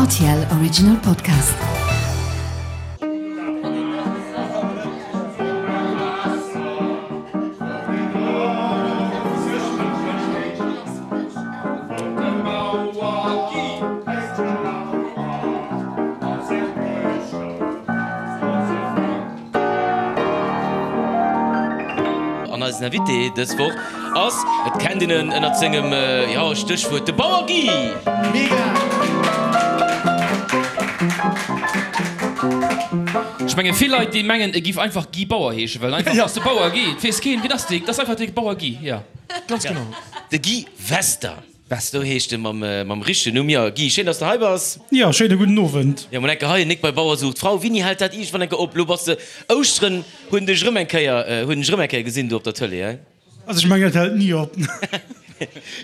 Rtl Original Podcast. An eisen Invité dës Woch ass, et kennt een en ënnert sengem, jo, Stéchwuert, de Bauer Guy! Mega! Ech menge vill Leit déi mengen e giff einfach Guy Bauer heeschen, well einfach ass de Bauer Guy, et weess keen wien ass dee, et ass einfach de Bauer Guy, jo. Ganz genau. De Guy Wester. Sou heescht e mam richtegen Numm. Jo, Guy, schéin, dass de hei bass. Jo, schéine gudden Owend. Jo, mol enke hei, Nik bei Bauer sucht Frau. Wini hält dat iergendwann enke op? Lo bass de Ouschteren, hunn dech erëm eng Kéier, hunn dech erëm eng Kéier gesinn do op der Tëlee, hein? Also ech mengen, et hält ni op.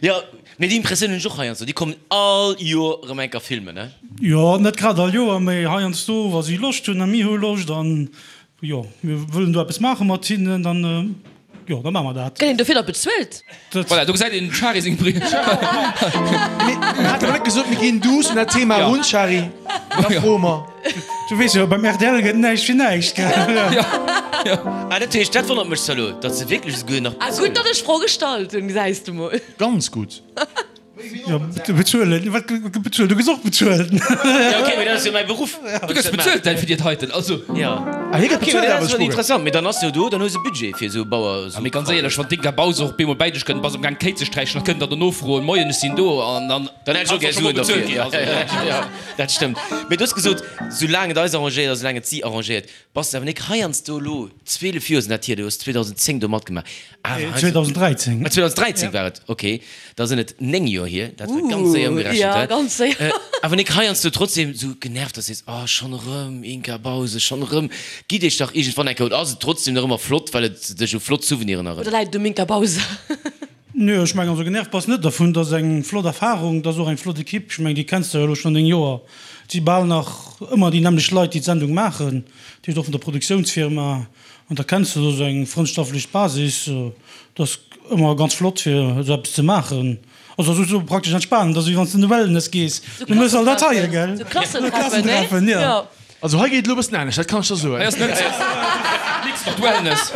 Jo, mee déi Impressioun hunn ech och heiansdo, déi kommen all Joer erëm eng Kéier filmen, hein? Jo, net grad all Joer, mee heiansdo, wa si Loscht hunn a mir hu Loscht an Jo, mir wëllen do eppes maache mat hinnen, dann, jo, da maache mer dat. Gëtt een dofir da bezuelt? Voilà, do gesäit een dem Shari seng Brill. Mir haten awer net gesot, mir ginn duuss un dat Thema erun, Shari. Da froe mer. Du weess jo, beim rtl gëtt näischt fir näischt, gell? Ah, dat heescht, dat wonnert mech zwar elo, datt se wierklech esouguer nach Ah, gutt, datt ech d'Fro gestallt hunn, gesäis de mol. Ganz gutt. Jo, bezuelen, wat gëtt bezuelt? Du gëss och bezuelt. Jo, ok, mee dat ass jo mäi Beruff. Du gëss bezuelt däi fir déi heiten, also. Jo. Ah, hie gëtt Ok, mee bezuelt dat awer, ass ech interessant. Mee dann ass jo do, dann hues e Budget fir esou Bauer. Ah, mee ganz éierlech, wann d'Inka Bause och bemol bäi dech kënnt, bass am Gaang d'Kéi ze sträichen, da kënnt der dono froen, Moien, ech sinn do, an dann. Dann hätt ech och gär Suen derfir. Jo, jo, dat stëmmt. Mee du hues gesot, soulaang et eis arrangéiert a soulaang et si arrangéiert. Bass de awer nik heiansdo elo, 12 Joer sinn dat hier, du hues 2010 do matgemaach, awer heiansdo. 2013. Ah, 2013 war et, ok, da sinn et 9 Joer hier, dat war ganz séier ëmgerechent, Ja, hä? ganz séier. Awer nik heiansdo trotzdem sou genervt, dass du sees, oh, schonn erëm Inka Bause, schonn erëm, gitt iech dach iergendwann eng Kéier, oder ass et trotzdem nach ëmmer flott, well et dech u flott Souveniren Oder erënnert? läit et um Inka Bause? Nö, ech mengen, also genervt bass net dervun, et ass eng flott Erfahrung, et ass och eng flott Equipe, ech mengen déi kenns de jo elo schonn 9 Joer, et si bal nach ëmmer déi nämmlecht Leit déi d'Sendung maachen, dat heescht och vun der Produktiounsfirma, an da kenns de do esou eng frëndschaftlech Basis, et ass ëmmer ganz flott fir esou eppes ze maachen, also ass esou praktesch entspanen, et ass wéi wann s de an de Wellness gees, du méchs all dat heie gell, Esou Klassentreffen, ne? Jo. Also hei geet et elo e bëssen anescht, dat kann ech der soen. Hei ass net nix mat Wellness.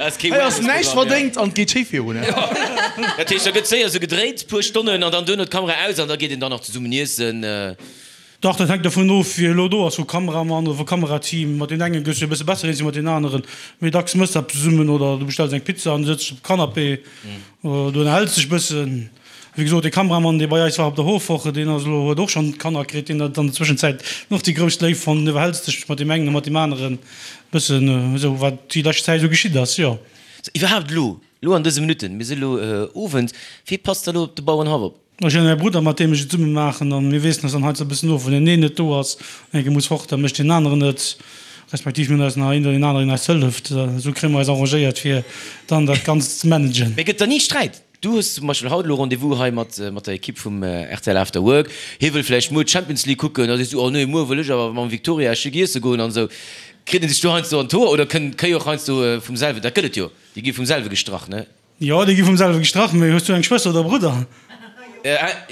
Hei ass näischt verdéngt an et geet schéi virun. Dat heescht, da gëtt séier esou gedréit, puer Stonnen an dann duerno d'Kamera aus an da geet een dann nach zesummen iessen. Dach, dat hänkt dovun of, wie elo do ass, vu Kameramann oder vu Kamerateam. Mat deem engen gëss du e bësse besser eens wéi mat deem aneren. Méi dacks mëss de eppes zesummen oder du bestells eng Pizza an du sëtz op dem Canapé oder du ënnerhäls dech bëssen. Wéi gesot, dee Kameramann, dee bei eis war op der Hofwoche, deen ass elo, huet och schonn Kanner kritt, deen huet an der Zwëschenzäit och déi grouss Léift fonnt. Du ënnerhäls dech mat deem engen a mat deem aneren e bëssen esou, wat déi lescht Zäit esou geschitt ass, jo. Sou, iwwerhaapt elo, elo an dëse Minutten, mir si elo Owend, wee passt da elo op de Bauerenhaff op? Ech hunn e Brudder, mat deem ech et zesumme maachen, an mir weessen eis dann heiansdo e bëssen of. Wann deen een net do ass, an enke muss fort, da mécht deen aneren et, respektiv mir hunn eis nach een oder deen aneren, deen eis hëlleft. Esou kréie mer eis arrangéiert, fir dann dat Ganzt ze managen. Mee gëtt da ni Sträit? Du hues zum Beispill haut elo Rendez-vous hei mat mat der Ekipp vum rtl After Work. Hie wëll vläicht muer d'Champions League kucken. Da sees du, oh nee, muer wëll ech awer mam Victoria Esch iesse goen an esou. Kritt een sech do heiansdo an d'Hoer oder kënnt d'Kéi och heiansdo vum selwen? Dat gëtt et jo, déi gi vum selwe gestrach, ne? Jo, déi gi vum selwe gestrach. Mee hues du eng Schwëster oder e Brudder?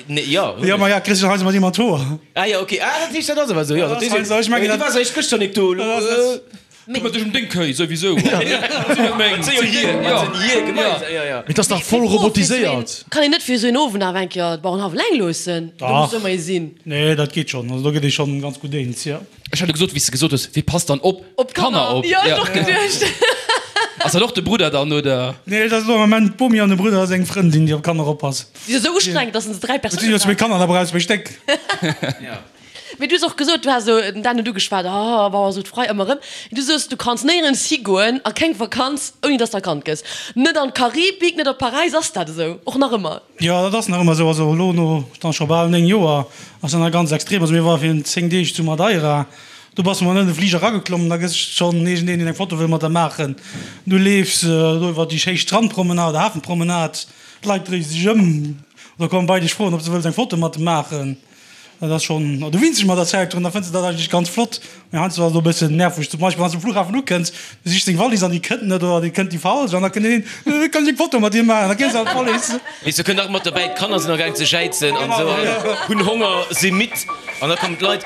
Nee, jo, hunn Jo, ech. ma ja, kriss du heiansdo mat him an d'Hoer. Ah jo, okay. Ah, dat heescht, dat ass awer esou, jo. Dat heescht, Ech mengen, du waars eréischt gëschter nik do, elo. Këmmert dech ëm deng Kéi souwisou. Wat sinn hir gemeinsam? Jo, jo. Mee et ass dach voll robotiséiert. Kann een net fir esou een Owend awer eng Kéier d'Bauerenhaff eleng loossen? Do muss ëmmer ee sinn. Nee, dat geet schonn. Also do gëtt ee schonn ganz gutt eens, jo. Ech hat jo gesot, wéi s de gesot hues, wee passt dann op d'Kanner op? Jo, ech och geduecht. Ass dat och de Brudder dann, oder? Nee, dat ass elo am Ament d'Bomi an de Brudder a seng Frëndin, déi op d'Kanner oppassen. Si ass esou ustrengend, dass en se 3 Et sinn jo Persounen zwéi braucht. Kanner, da brauchs zwéi Stéck. Mee du hues och gesot, du has esou den Dan huet ugeschwat, oh, Bauer sot frei, ëmmer erëm. Du soos, du kanns néierens higoen a keng Vakanz, ouni dass de erkannt gëss. Net an d'Karibik, net op Paräis. Ass dat esou och nach ëmmer? Jo, dat ass nach ëmmer esou. Also elo no dann scho bal 9 Joer ass dat nach ganz extrem. Also mir ware virun 10 Deeg zu Madeira, do bass de mol net an de Fliger erageklommen, da gëss schonn iergendeen, deen eng Foto wëll mat der maachen. Du leefs do iwwer déi schéi Strandpromenade, Hafenpromenade, d'Leit dréie sech ëm oder komme bei dech froen, ob se wëlls eng Foto mat de maachen. Dat ass schonn, du winns dech mat der Zäit drun, da fënns de dat eigentlech ganz flott. Mee heiansdo ass et och e bëssen nerveg, zum Beispill wann s de um Flughafen ukënns, du sichs deng Wallis an déi kënnt net oder déi kënnt déi falsch an da kënnt een, Kann ech eng Foto mat dir maachen? Da gees de an d'Wallis. Weess du, kënnt nach mat derbäi, d'Kanner sinn agaang ze jäizen an esou an hunn Honger, si midd an da kommen d'Leit.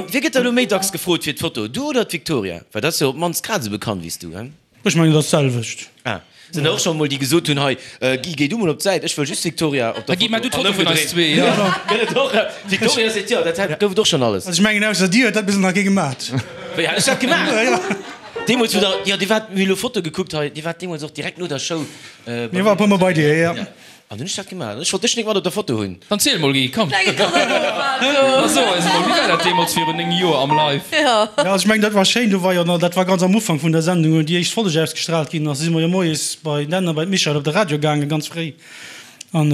Wie gëtt da elo méi dacks gefrot fir d'Foto, du oder d'Victoria? Well dat ass jo op d'mannst grad esou bekannt wéi s du, hein? Ech mengen, et ass d'selwecht. Ah, sinn der och scho mol déi gesot hunn, hei Guy, géi du mol op d'Säit, ech wëll just d'Victoria op der Guy, maach du Foto d'Foto vun eis zwee, jo. Gëtt et och, d'Victoria seet jo, dat gouf et och schonn alles. Also ech mengen, ausser dir huet dat bis elo nach kee gemaat. Wéi, hat ech dat gemaach? Jo. Deemools wou der, jo, dir waart, mir hu elo Foto gekuckt hei, dir waart deemools och direkt no der Show bei mir. Mir war e puer mol bei dir, jo. An hunn ech dat gemaach? Ech wollt dech nik mat op der Foto hunn. Dann ziel mol Guy, komm. Da so eis mol, wéi war dat deemools virun 9 Joer am Live? Jo, also ech mengen dat war schéin, do war jo nach, dat war ganz am Ufank vun der Sendung, wou déi éischt Folleg ausgestraalt ginn ass, si mer jo moies bei den a bei d'Michèle op de Radio gaangen, ganz fréi. An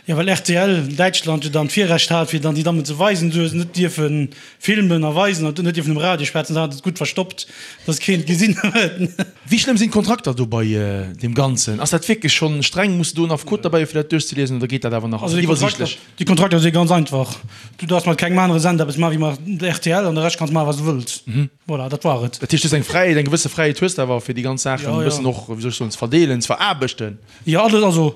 jo, well rtl Däitschland jo dann d'Virrecht hat, fir dann déi Dammen ze weisen, du hues net dierfe filmen a weisen an net dierfen um Radio schwätzen, da hat et gutt verstoppt, dass keen et gesinn huet. Wéi schlëmm sinn d'Kontrakter do bei deem Ganzen? Ass dat wierklech schonn streng? Muss de do en Affekot derbäi hu fir dat duerchzeliesen oder geet dat awer nach? Ass et iwwersiichtlech? Déi Kontrakter si ganz einfach. Du darfs mat kengem anere Sender eppes maachen wéi mat rtl an de Rescht kanns maachen wat s du wëlls. Voilà, dat war et. Dat heescht, du hues eng Fräiheet, eng gewësse Fräiheet hues de awer fir déi ganz Saachen e bëssen och, wéi soll ech soen, ze verdeelen, ze veraarbechten. Jo, alles, also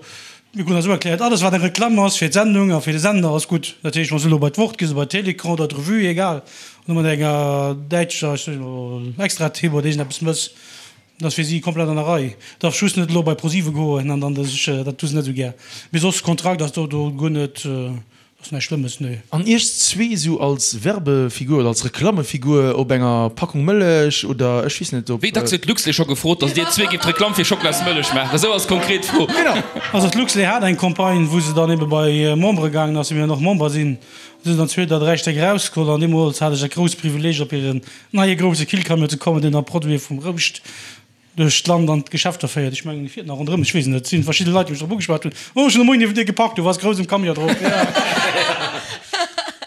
mir kruten dat esou erkläert, alles wat eng Reklamm ass fir d'Sendung a fir de Sender ass gutt. Dat heescht, wann s du elo bei d'Wort gees oder bei Télécran oder d'Revue, egal, wann du mat enger däitscher, ech soen elo, Extra-Tipp oder iergendeppes mëss, dat ass fir si komplett an der Rei. Darfs just net elo bei ProSieben goen an dann dech, dat hu se net esou gär. Mee soss, Kontrakt ass do do guer net. Ass näischt Schlëmmes, nee. An iech zwee esou als Werbefigur oder als Reklammefigur op enger Packung Mëllech oder ech weess net op. Wéi dacks huet d'Luxlait scho gefrot, datt dir zwee gift Reklamm fir Schocklasmëllech maachen? Esou als konkret Fro. Genau. Also d'Luxlait hat eng Campagne, wou se dann ebe bei Membere gaangen ass, wéi mir noch Member sinn. Do sinn dann zwee oder dräi Stéck erausgeholl an deemools hat ech dat grousst Privileeg op hiren neie grousse Killcamion ze kommen, deen da Produite vum Rouscht duerch d'Land an d'Geschäfter féiert. Ech mengen, e fiert nach ronderëm, ech weess et net. Et si verschidde Leit, déi mech drop ugeschwat hunn, Oh, ech hunn de Moien niewent dir geparkt, du waars grouss um Camion drop.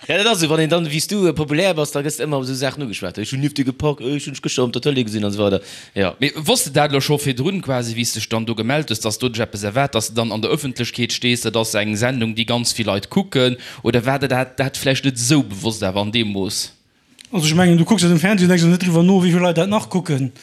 Ja, dat ass esou, wann een dann, wéi s du, populär bass, da gëss de ëmmer op esou Saachen ugeschwat. Ech hunn nieft dir geparkt, ech hunn dech gëschter op der Tëlee gesinn an esou weider. Jo. Mee wosst de dat elo scho virdrun quasi, wéi s dech dann do gemellt hues, dass do dech eppes erwaart, dass de dann an der Ëffentlechkeet stees, dat ass eng Sendung, déi ganz vill Leit kucken, oder war der dat dat vläicht net esou bewosst awer an deem Mooss? Also ech mengen, du kucks dat um Fernseh an denks och net driwwer no, wéi vill Leit dat nach kucken.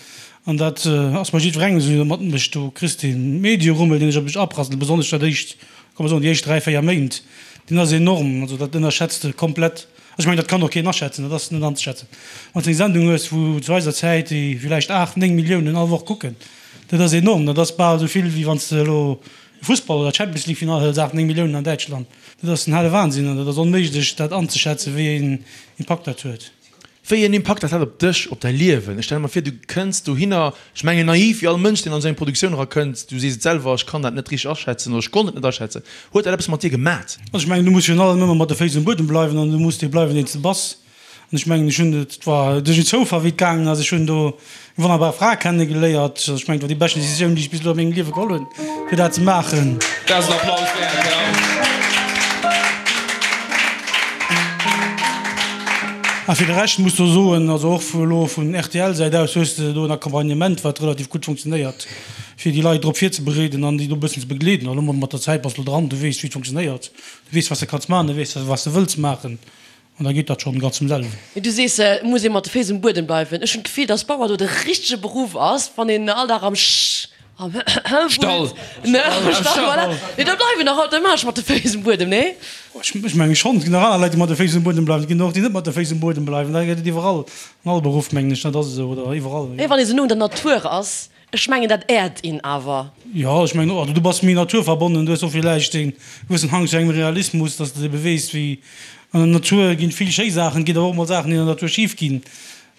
An dat ass bei jiddwerengem esou, deen dat matmécht. Du kriss dee Medierummel, deen dech op dech aprasselt, besonnesch dat éischt, komm mer soen, déi éischt dräi, véier Méint, deen ass enorm. Also dat ënnerschätzt de komplett. Also ech mengen, dat kann och keen aschätzen, dat ass net anzeschätzen. Wann s de eng Sendung hues, wou zu eiser Zäit déi villäicht aacht, néng Milliounen all Woch kucken, dat ass enorm. Dat ass bal esou vill, wéi wann s de elo e Fussball oder d'Champions League Finall hëls, aacht, néng Milliounen an Däitschland. Dat ass den hale Wahnsinn an dat ass onméiglech dat anzeschätzen, wéi een Impakt dat huet. Wéi een Impakt dat hat op dech, op däi Liewen. Ech stelle mer vir, du kënns dohinner, ech mengen naiv wéi all Mënsch, deen an esou eng Produktioun erakënnt, du sees et selwer, ech kann dat net richteg aschätzen oder ech konnt et net aschätzen. Huet dat eppes mat dir gemat? Also ech mengen, du muss virun allem ëmmer mat de Féiss um Buedem bleiwen an du muss dee bleiwen, deen s de bass. An ech mengen, ech hunn, et war duerch en Zoufall, wéi et gaangen ass, ech hunn do eng wonnerbar Fra kennegeléiert. Also ech mengen, et war déi beschten Decisioun, déi ech bis elo a mengem Liewe geholl hunn, fir dat ze maachen. Dat ass en Applaus wäert, jo. A fir de Rescht muss do soen, also och vu elo vun RTL-Säit aus hues de do en Accompagnement, wat relativ gutt funktionéiert, fir déi Leit drop virzebereeden an déi do e bëssen ze begleeden. An elo mat der Zäit bass de elo dran, du weess, wéi et funktionéiert, du weess, wat s de kanns maachen, du weess, wat s de wëlls maachen. An da geet dat schonn ganz vum selwen. Mee du sees, et muss ee mat de Féiss um Buedem bleiwen. Ech hunn d'Gefill, dass Bauer do de richtege Beruff ass, wann een all Dag am Sch, am wullt, Stall. Ne, am Stall, voilà. Nee, da bleiwen nach automatesch mat de Féiss um Buedem, nee? Ech menge schonn. Et ginn nach aner Leit, déi mat de Féiss um Buedem bleiwen. Et ginn och déi net mat de Féiss um Buedem bleiwen. Dat gëtt et iwwerall, an all Beruff, mengen ech. Dat ass esou, oder iwwerall, jo. Mee wann ee sou no un der Natur ass, Ech mengen dat äert een awer. Jo, ech mengen och. Also du bass méi naturverbonnen, du hues och villäicht e gewëssen Hang zu engem Realismus, dass de ebe weess wéi an der Natur ginn vill schéi Saachen, et ginn awer och mol Saachen déi an der Natur schif ginn.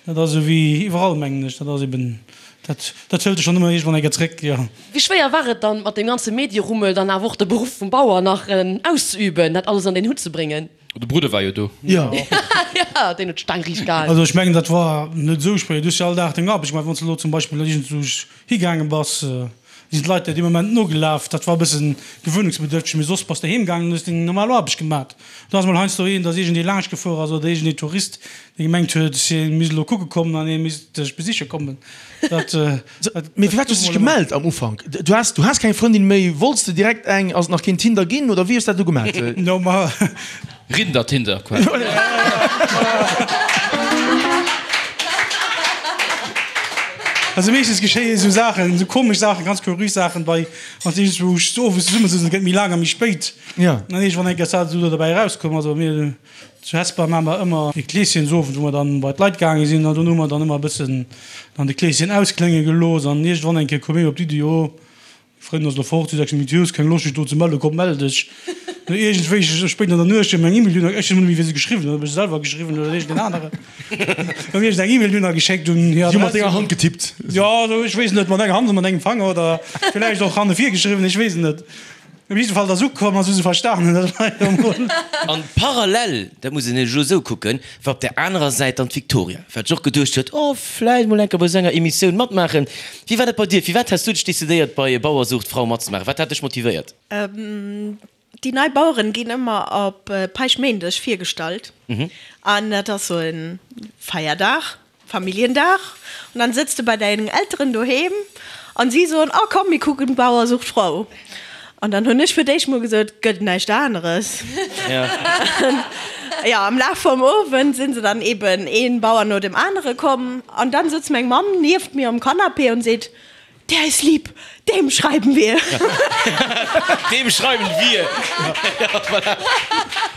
Dat ass esou wéi iwwerall mengen ech. Dat ass eben, dat dat hëlt dech dann ëmmer iergendwann eng Kéier zréck, jo. Wéi schwéier war et dann mat deem ganze Medierummel dann awer och de Beruff vum Bauer nach auszeüben, dat alles an deen Hutt ze bréngen? De Brudder war jo do. Jo. Jo, deen huet d'Staang riicht gehalen. Also ech mengen, dat war net esou schwéier. Du hues jo all Dag deng Aarbecht gemaach. Wann s de elo zum Beispill iergendwou higaange bass, sinn d'Leit der dee Moment nogelaf. Dat war e bësse gewöhnungsbedürfteg, mee soss bass de heem gaangen an hues deng normal Aarbecht gemaat. Do ass mol heiansdo een, dass iergendee laanscht gefuer ass oder iergendee Tourist, dee gemengt huet, hie misst elo kucke kommen an hie misst dech besiche kommen. Dat, dat Mee firwat hues de dech gemellt am Ufank? Du has, du has keng Frëndin méi, wollts de direkt eng? Ass et nach keen Tinder ginn oder wéi hues dat du gemat? No, ma. Rinder-Tinder quasi. Also meeschtens geschéien esou Saachen, esou komesch Saachen, ganz kuriös Saachen bei wann s iergendwou owes zesumme sëtzen, et gëtt méi laang a méi spéit. An iergendwann eng Kéier ass dat esou do derbäi erauskomm. Also mir zu Hesper maache mer ëmmer e Kleeschensowend, wou mer dann bei d'Leit gaange sinn an dunn hu mer dann ëmmer e bëssen dann de Kleeschen ausklénge gelooss an iergendwann eng Kéier koum een op d'Iddi, jo, Frënn ass lo fort, si 6 Minutten, hues keng Loscht dech do ze mellen, komm mell dech. No iergendwéi spéit an der Nuecht huet mir eng E-Mail dunn, ech weess net méi wien se geschriwwen huet, ob ech se selwer geschriwwen hunn oder iergendeen aneren, huet mir iergend eng E-Mail dunn geschéckt un hir Si hu mat Adress. denger Hand getippt. Jo, also ech weess net, mat enger Hand oder mat engem Fanger oder villäicht och hanne vir geschriwwen, ech weess et net. Op jidde Fall, et ass ukomm a si hu se verstanen, dat war jo mol. An parallel, dat muss een elo esou kucken, war op där anerer Säit dann d'Victoria, wat sech och geduecht huet, oh, vläicht mol eng Kéier bei esou enger Emissioun matmaachen. Wéi war dat bei dir? Firwat has du dech decidéiert, bei Bauer sucht Frau matzemaachen? Wat hat dech motivéiert? Déi nei Baueren ginn ëmmer op Päischtméindeg virgestallt an dat ass sou e Feierdag, Familljendag. An dann sëtz de bei dengen Elteren doheem an si soen, oh komm mir kucken Bauer sucht Frau. An dann hunn ech fir d'éischt mol gesot, gëtt näischt aneres. Jo, am Laf vum Owend sinn se dann eben een Bauer no dem anere komm an dann sëtzt meng Mamm nieft mir um Canapé und seet, Der ist lieb, dem schreiben wir. Dem schreiben wir. Ja, voilà.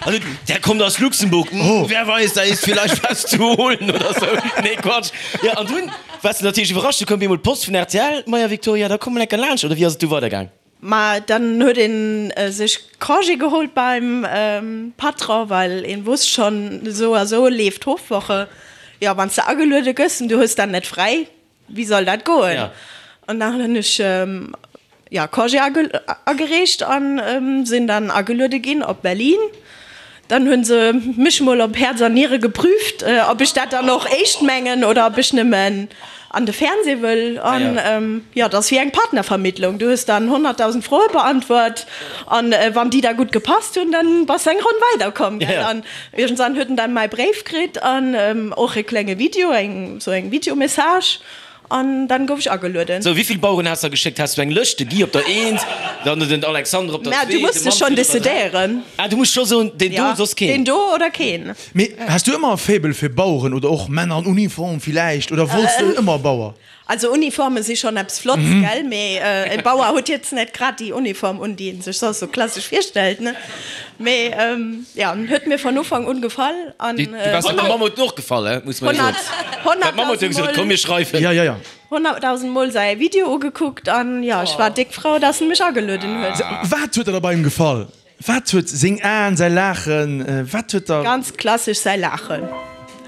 Also, der kommt aus Luxemburg. Oh. Wer weiß, da ist vielleicht was zu holen oder so. Nee, Quatsch. Ja, an dunn waars de natierlech iwwerrascht, du koum bemol d'Post vun rtl, Maja Victoria, da komm mol enker laanscht, oder wéi ass et du weidergaang? Ma dann huet een sech Congé geholt beim Patron, well een wosst schon, esou a sou leeft d'Hofwoche. Jo, wann s de ageluede gëss en du hues dann net fräi, wéi soll dat goen? An dann hunn ech jo Congé agereecht an sinn dann ageluede ginn op Berlin. Dann hunn se mech mol op Häerz an Niere geprüft, ob ech dat dann och éischt mengen oder ob ech nëmmen an de Fernseh wëll. An jo, dat ass wéi eng Partnervermittlung. Du hues dann 100.000 Froe beantwort an wann déi da gutt gepasst hunn, dann bass de eng Ronn weiderkomm, gell. An iergendwann huet en dann mäi Bréif kritt an och e klenge Video, eng sou eng Videomessage. An dann gouf ech agelueden. Sou, wéivill Baueren has der geschéckt? Has du eng Lëscht? De Guy op der Eent, dann den Alexandre op der Mä Zwee, du muss de dech schonn Manfred op der Dräi. decidéieren. Ah, du muss scho soen, deen do, Ja, soss keen. deen do oder keen. Mee has du ëmmer e Faible fir Baueren oder och Männer an Uniform villäicht oder wollts de ëmmer Bauer? Also Uniforme si schonn eppes Flotts, gell, mee e Bauer huet jetzt net grad déi Uniform un, déi een sech soss sou klassesch virstellt, ne? Mee jo, en huet mir von Ufank un gefall an. Du waars der Mamm huet en och gefall, he, muss mer jo soen. D'Mamm huet jo gesot, komm mir schreiwen. Ja, ja, ja. 100.000 Mol säi Video ugekuckt an jo, ech war déck frou, dass en mech agelueden huet. Wat huet der da bei him gefall? Wat huet seng Aen, säi Laachen, wat huet der. Ganz klassesch säi Laachen,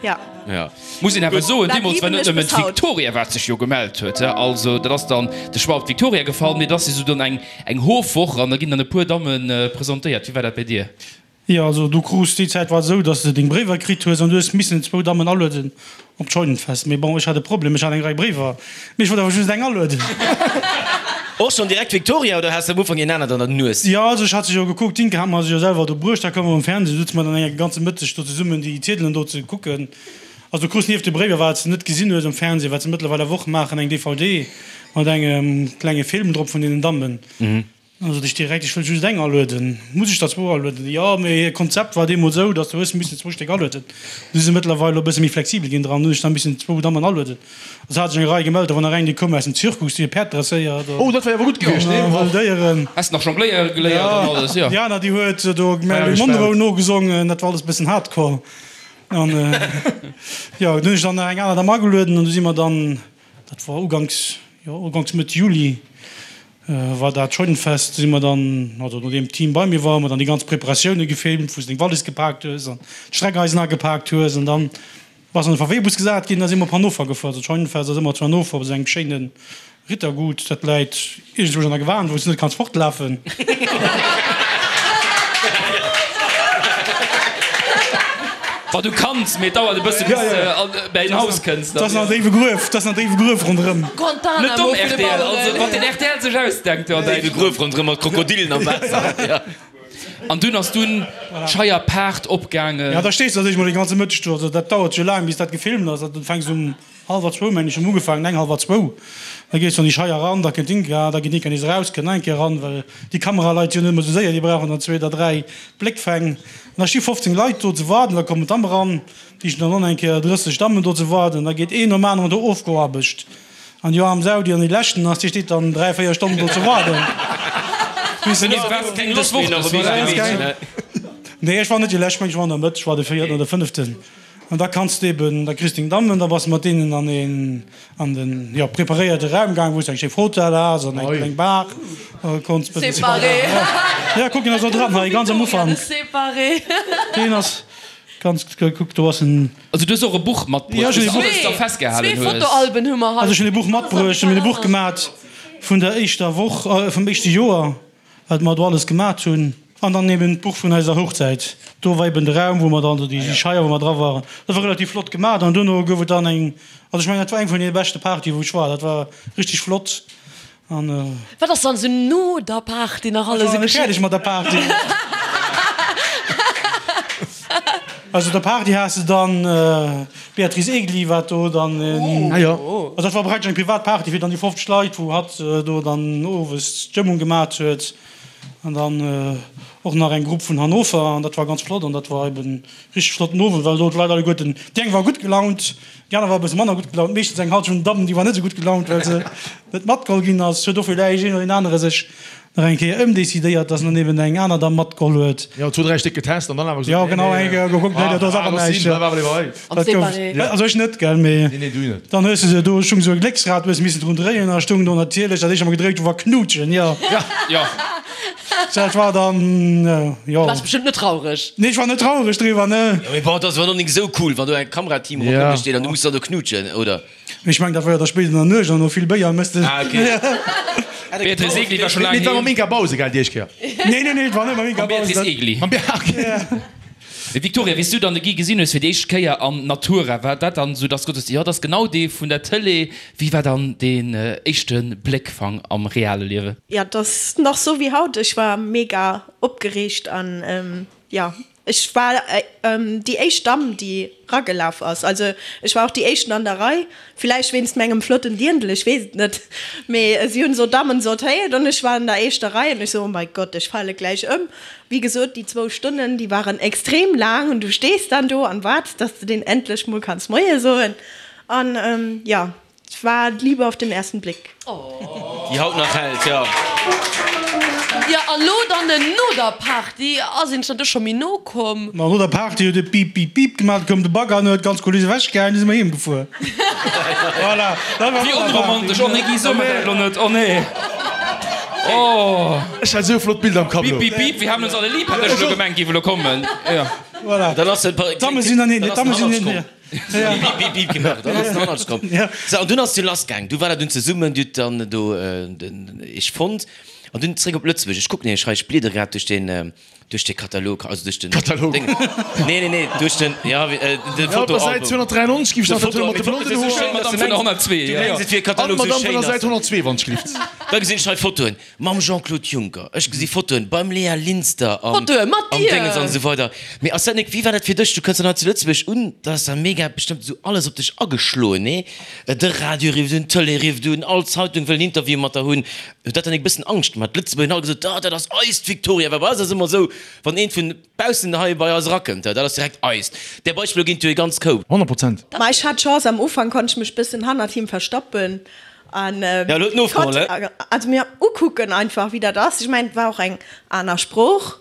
jo. Ja. Muss een awer soen, Dat deemools war liwen net ech nëmmen bis haut. d'Victoria wat sech jo gemellt huet, he, also dat ass dann de Choix op d'Victoria gefall, mee et ass jo sou dann eng eng Hofwoch an da ginn dann e puer Damme presentéiert. Wéi war dat bei dir? Jo, also du krus, déi Zäit war et esou, dass de deng Bréiwer kritt hues an du hues missen zwou Dammen alueden op d'Scheunenfest. Mee bon, ech hat e Problem, ech hat eng Rei Bréiwer, mee ech wollt awer just eng alueden. Och schonn direkt d'Victoria oder has de am Ufank een anert an der Nues? Jo, also ech hat se jo gekuckt, d'Inke hat mer se jo selwer do bruecht, da koum mer um Fernseh, du sutze mer dann eng ganze Mëtteg do zesummen déi Ziedelen do ze kucken. Also du krus nieft de Bréiwer, wat s de net gesinn hues um Fernseh, wat se mëttlerweil awer och maachen, eng DVD mat engem klenge Film drop vun deenen Dammen. Dann sot ech direkt, ech wëll just eng alueden. Muss ech der zwou alueden? Jo, mee hiert Konzept war deemools esou, datt du hues missen zwou Stéck alueden. Du si se mëttlerweil elo e bësse méi flexibel ginn dran, hunn ech da missen zwou Dammen alueden. Also hat sech eng Rei gemellt, da war nach eng, déi koum aus dem Zirkus, déi huet Päerd dresséiert Oh, dat wär awer gutt gewiescht, nee? an wëll Déieren. Has nach jongléiere geléiert an alles, jo. Déi aner, déi huet do Marilyn Monroe nogesongen, dat war alles e bëssen hardcore. An jo, dunn hunn ech dann nach eng aner Damm agelueden an du si mer dann, dat war uganks, jo, uganks Mëtt Juli, war dat Scheunenfest, si mer dann, also nodeem d'Team bei mir war, hu mer dann déi ganz Preparatioune gefilmt, wou s de deng Wallis gepaakt hues an d'Streckeisen agepaakt hues an dann bass an de VW-Bus gesat ginn, da si mer op Hannover gefuer. Also d'Scheunenfest ass ëmmer zu Hannover op esou engem schéine Rittergut, dat läit iergendwou an der Gewan, wou s de net kanns fortlafen. Wa du kanns, mee et dauert e bësse bis de bäi en Haus kënns. Dat ass nach déiwe Gruef, dat ass nach déiwe Gruef ronderëm. Net domm rtl, also wat den rtl sech ausdenkt do an Déiwe Gruef ronderëm mat Krokodillen am Waasser, jo. An dunn ass dunn d'Scheier Paart opgaangen. Ja, da stees de natierlech mol de ganze Mëtteg do. Also dat dauert jo laang, bis dat gefilmt ass. Du fänks um hallwer zwou, meng ech, hunn ugefaangen, eng, hallwer zwou. Da gees du an déi Scheier eran, da kënnt d'Inka, da geet d'Inka nees eraus, kënnt nach eng Kéier eran, well déi Kameraleit si jo net ëmmer esou séier, déi brauchen dann zwee oder dräi Bléckfäng. An da sti 15 Leit do ze waarden, da kommen d'Damm eran, déi stinn dann och nach eng Kéier 30 Dammen do ze waarden. Da geet een nom aneren do ofgeaarbecht. An déi aarm Sau, déi an déi leschten ass, déi steet dann 3, 4 Stonnen do ze waarden. Nee, ech war net déi lescht, ech war an der Mëtt, ech war de véierten oder fënneften. An da kanns de eben, da kriss de deng Dammen, da bass de mat deenen an een, an den, jo, preparéierte Raum gaang, wou s de eng schéi Fotell has an eng kleng Bar, a konns bëssen. Séparé. Ja, kuck, deen ass och dran hei, ganz am Ufank. Séparé. Deen ass ganz, kuck, do ass en. Also du hues och e Buch matbruecht, wou s de alles da festgehalen Zwee hues. Fotoalben hu mer hei. Also ech hunn e Buch matbruecht, ech hunn e Buch gemat vun der éischter Woch, vum éischte Joer, wat mer do alles gemat hunn. An dann eben d'Buch vun eiser Hochzäit. Do war eben de Raum, wou mer dann, also déi Scheier, wou mer dra waren. Dat war relativ flott gemat. An duerno gouf et dann eng, also ech mengen, dat war eng vun deene beschte Partye wou ech war. Dat war richteg flott. An. Wat ass dann esou no der Party nach alles esou geschitt? Ech war nach net fäerdeg mat der Party. Also der Party has de dann d'Beatrice Egli wat do dann, also dat war praktesch eng privat Party fir dann déi 50 Leit wou hatt do dann owes d'Stëmmung gemat huet an dann och nach eng Grupp vun Hannover an dat war ganz flott an dat war eben richteg flotten Owend well do d'Leit alleguerten, déi eng war gutt gelaunt, Déi aner war e bësse manner gutt gelaunt, meeschtens eng Halschent vun den Dammen, déi war net esou gutt gelaunt, well se net matgeholl ginn ass. Huet och villäicht een oder deen anere sech nach eng Kéier ëmdecidéiert, dass en dann eben eng aner Damm matgeholl huet. Jo, zwou, dräi Stéck getest an dann awer gesot, Jo, genau, eng Kéier gekuckt, nee, dat ass awer näischt. Dat gouf, also ech net, gell, mee dann hues de se, do stung esou e Glécksrad, du hues missen drun dréien, a stung do natierlech, dat éischt, wat mer gedréit hu war Knutschen, jo. Jo. Dat war dann, jo. Du waars bestëmmt net traureg. Nee, ech war net traureg driwwer, ne. Jo, mee bon, et ass awer nach nik esou cool, wann do e Kamerateam ronderëm dech steet an du muss dann do knutschen, oder? Mee ech mengen, dat war jo da spéit an der Nuecht an no vill Béier mëss de. Ah, ok. Beatrice Egli war scho laang Nee, et war heem. mam Inka Bause, gell, déi éischt Kéier? Nee, nee, nee, et war net mam Inka Mam Bause. Beatrice Egli. Mam Bea, ok. Mee Victoria, wéi s du dann de Guy gesinn hues fir déi éischt Kéier an Natura, war dat dann esou, dass du gesot hues, jo, dat ass genau dee vun der Tëlee? Wéi war dann deen éischte Bléckfang am reale Liewen? Jo, et ass nach sou wéi haut. Ech war mega opgereegt an jo, ech war déi éischt Damm, déi ragelaf ass. Also ech war och déi éischten an der Rei, villäicht wéinst mengem flotten Dirndl, ech weess et net. Mee si hunn esou Dammen sortéiert an ech war an der éischter Rei an ech sou, oh mein Gott, ech fale gläich ëm. Wéi gesot, déi zwou Stonnen, déi waren extrem laang an du stees dann do an waarts, dass de deen endlech mol kanns Moie soen. An jo, et war d'Liebe auf den ersten Blick. Déi haut nach hält, jo. Jo, an lo dann no der Party, ass een dann do scho méi no komm? Ma no der Party huet et Bip, Bip, Bip gemaach, du koum de Bagger an huet d'ganz Kuliss ewechgehaen, du si mer heem gefuer. Voilà, dat war Wéi no der Party. onromantesch! Oh nee, Guy, so mer dat lo net, oh nee, oh. Ech hat esou flott Bilder am Kapp Bip, elo. bip, bip, wir haben uns alle lieb, hat ech elo gemengt, géif elo kommen, jo. Voilà. Dann ass den, D'Damme sinn dann hin, d'Damme sinn hin. Bip, bip, bip gemaach, dann ass den Hannertsch komm. Sou, an dunn ass du lassgaang. Du war dat dunn zesummen, dir hutt dann do den iech fonnt an dunn zréck op Lëtzebuerg. Ech kucken nämlech hei, ech bliedere grad duerch den, duerch de Katalog, also duerch den Katalog. Ding. Nee, nee, nee, duerch den, ja, de Ja, op der Fotoalbum. Säit 293 giff ech De nach dat Foto, mat de blonden esou Hoer. schéin, dass Madame de vun der mengs, 102, du ja. mengs et wier e An Katalog, esou d'Madame vun schéin der ass Säit en. 102, wann ech glift. Da gesinn ech hei Fotoen mam Jean-Claude Juncker, ech gesi Fotoen beim Léa Linster am Fotoe mat am dir! Déngens an esou weider. Mee ass dat nik, wéi war dat fir dech? Du kënns dann hei zu Lëtzebuerg un, da ass da mega bestëmmt esou alles op dech ageschloen, nee? De Radio rifft un, d'Tëlee rifft un, all Zeitung wëll en Interview mat der hunn. Huet dat dann nik e bëssen Angscht gemaach? D'Lëtzebuerger hunn all gesot, ah, dat ass eist Victoria, well bei eis ass ëmmer esou, wann eent vun baussen hei bei eis erakënnt, dat ass direkt eist. Där Beispiller ginn et jo e ganz Koup. 100 Prozent. Ma ech hat d'Chance, am Ufank konnt ech mech bëssen hannert him verstoppen an Ja, elo huet en ofgeholl, konnt also mir ukucken einfach wéi dat ass. Ech mengen et war och eng aner Sprooch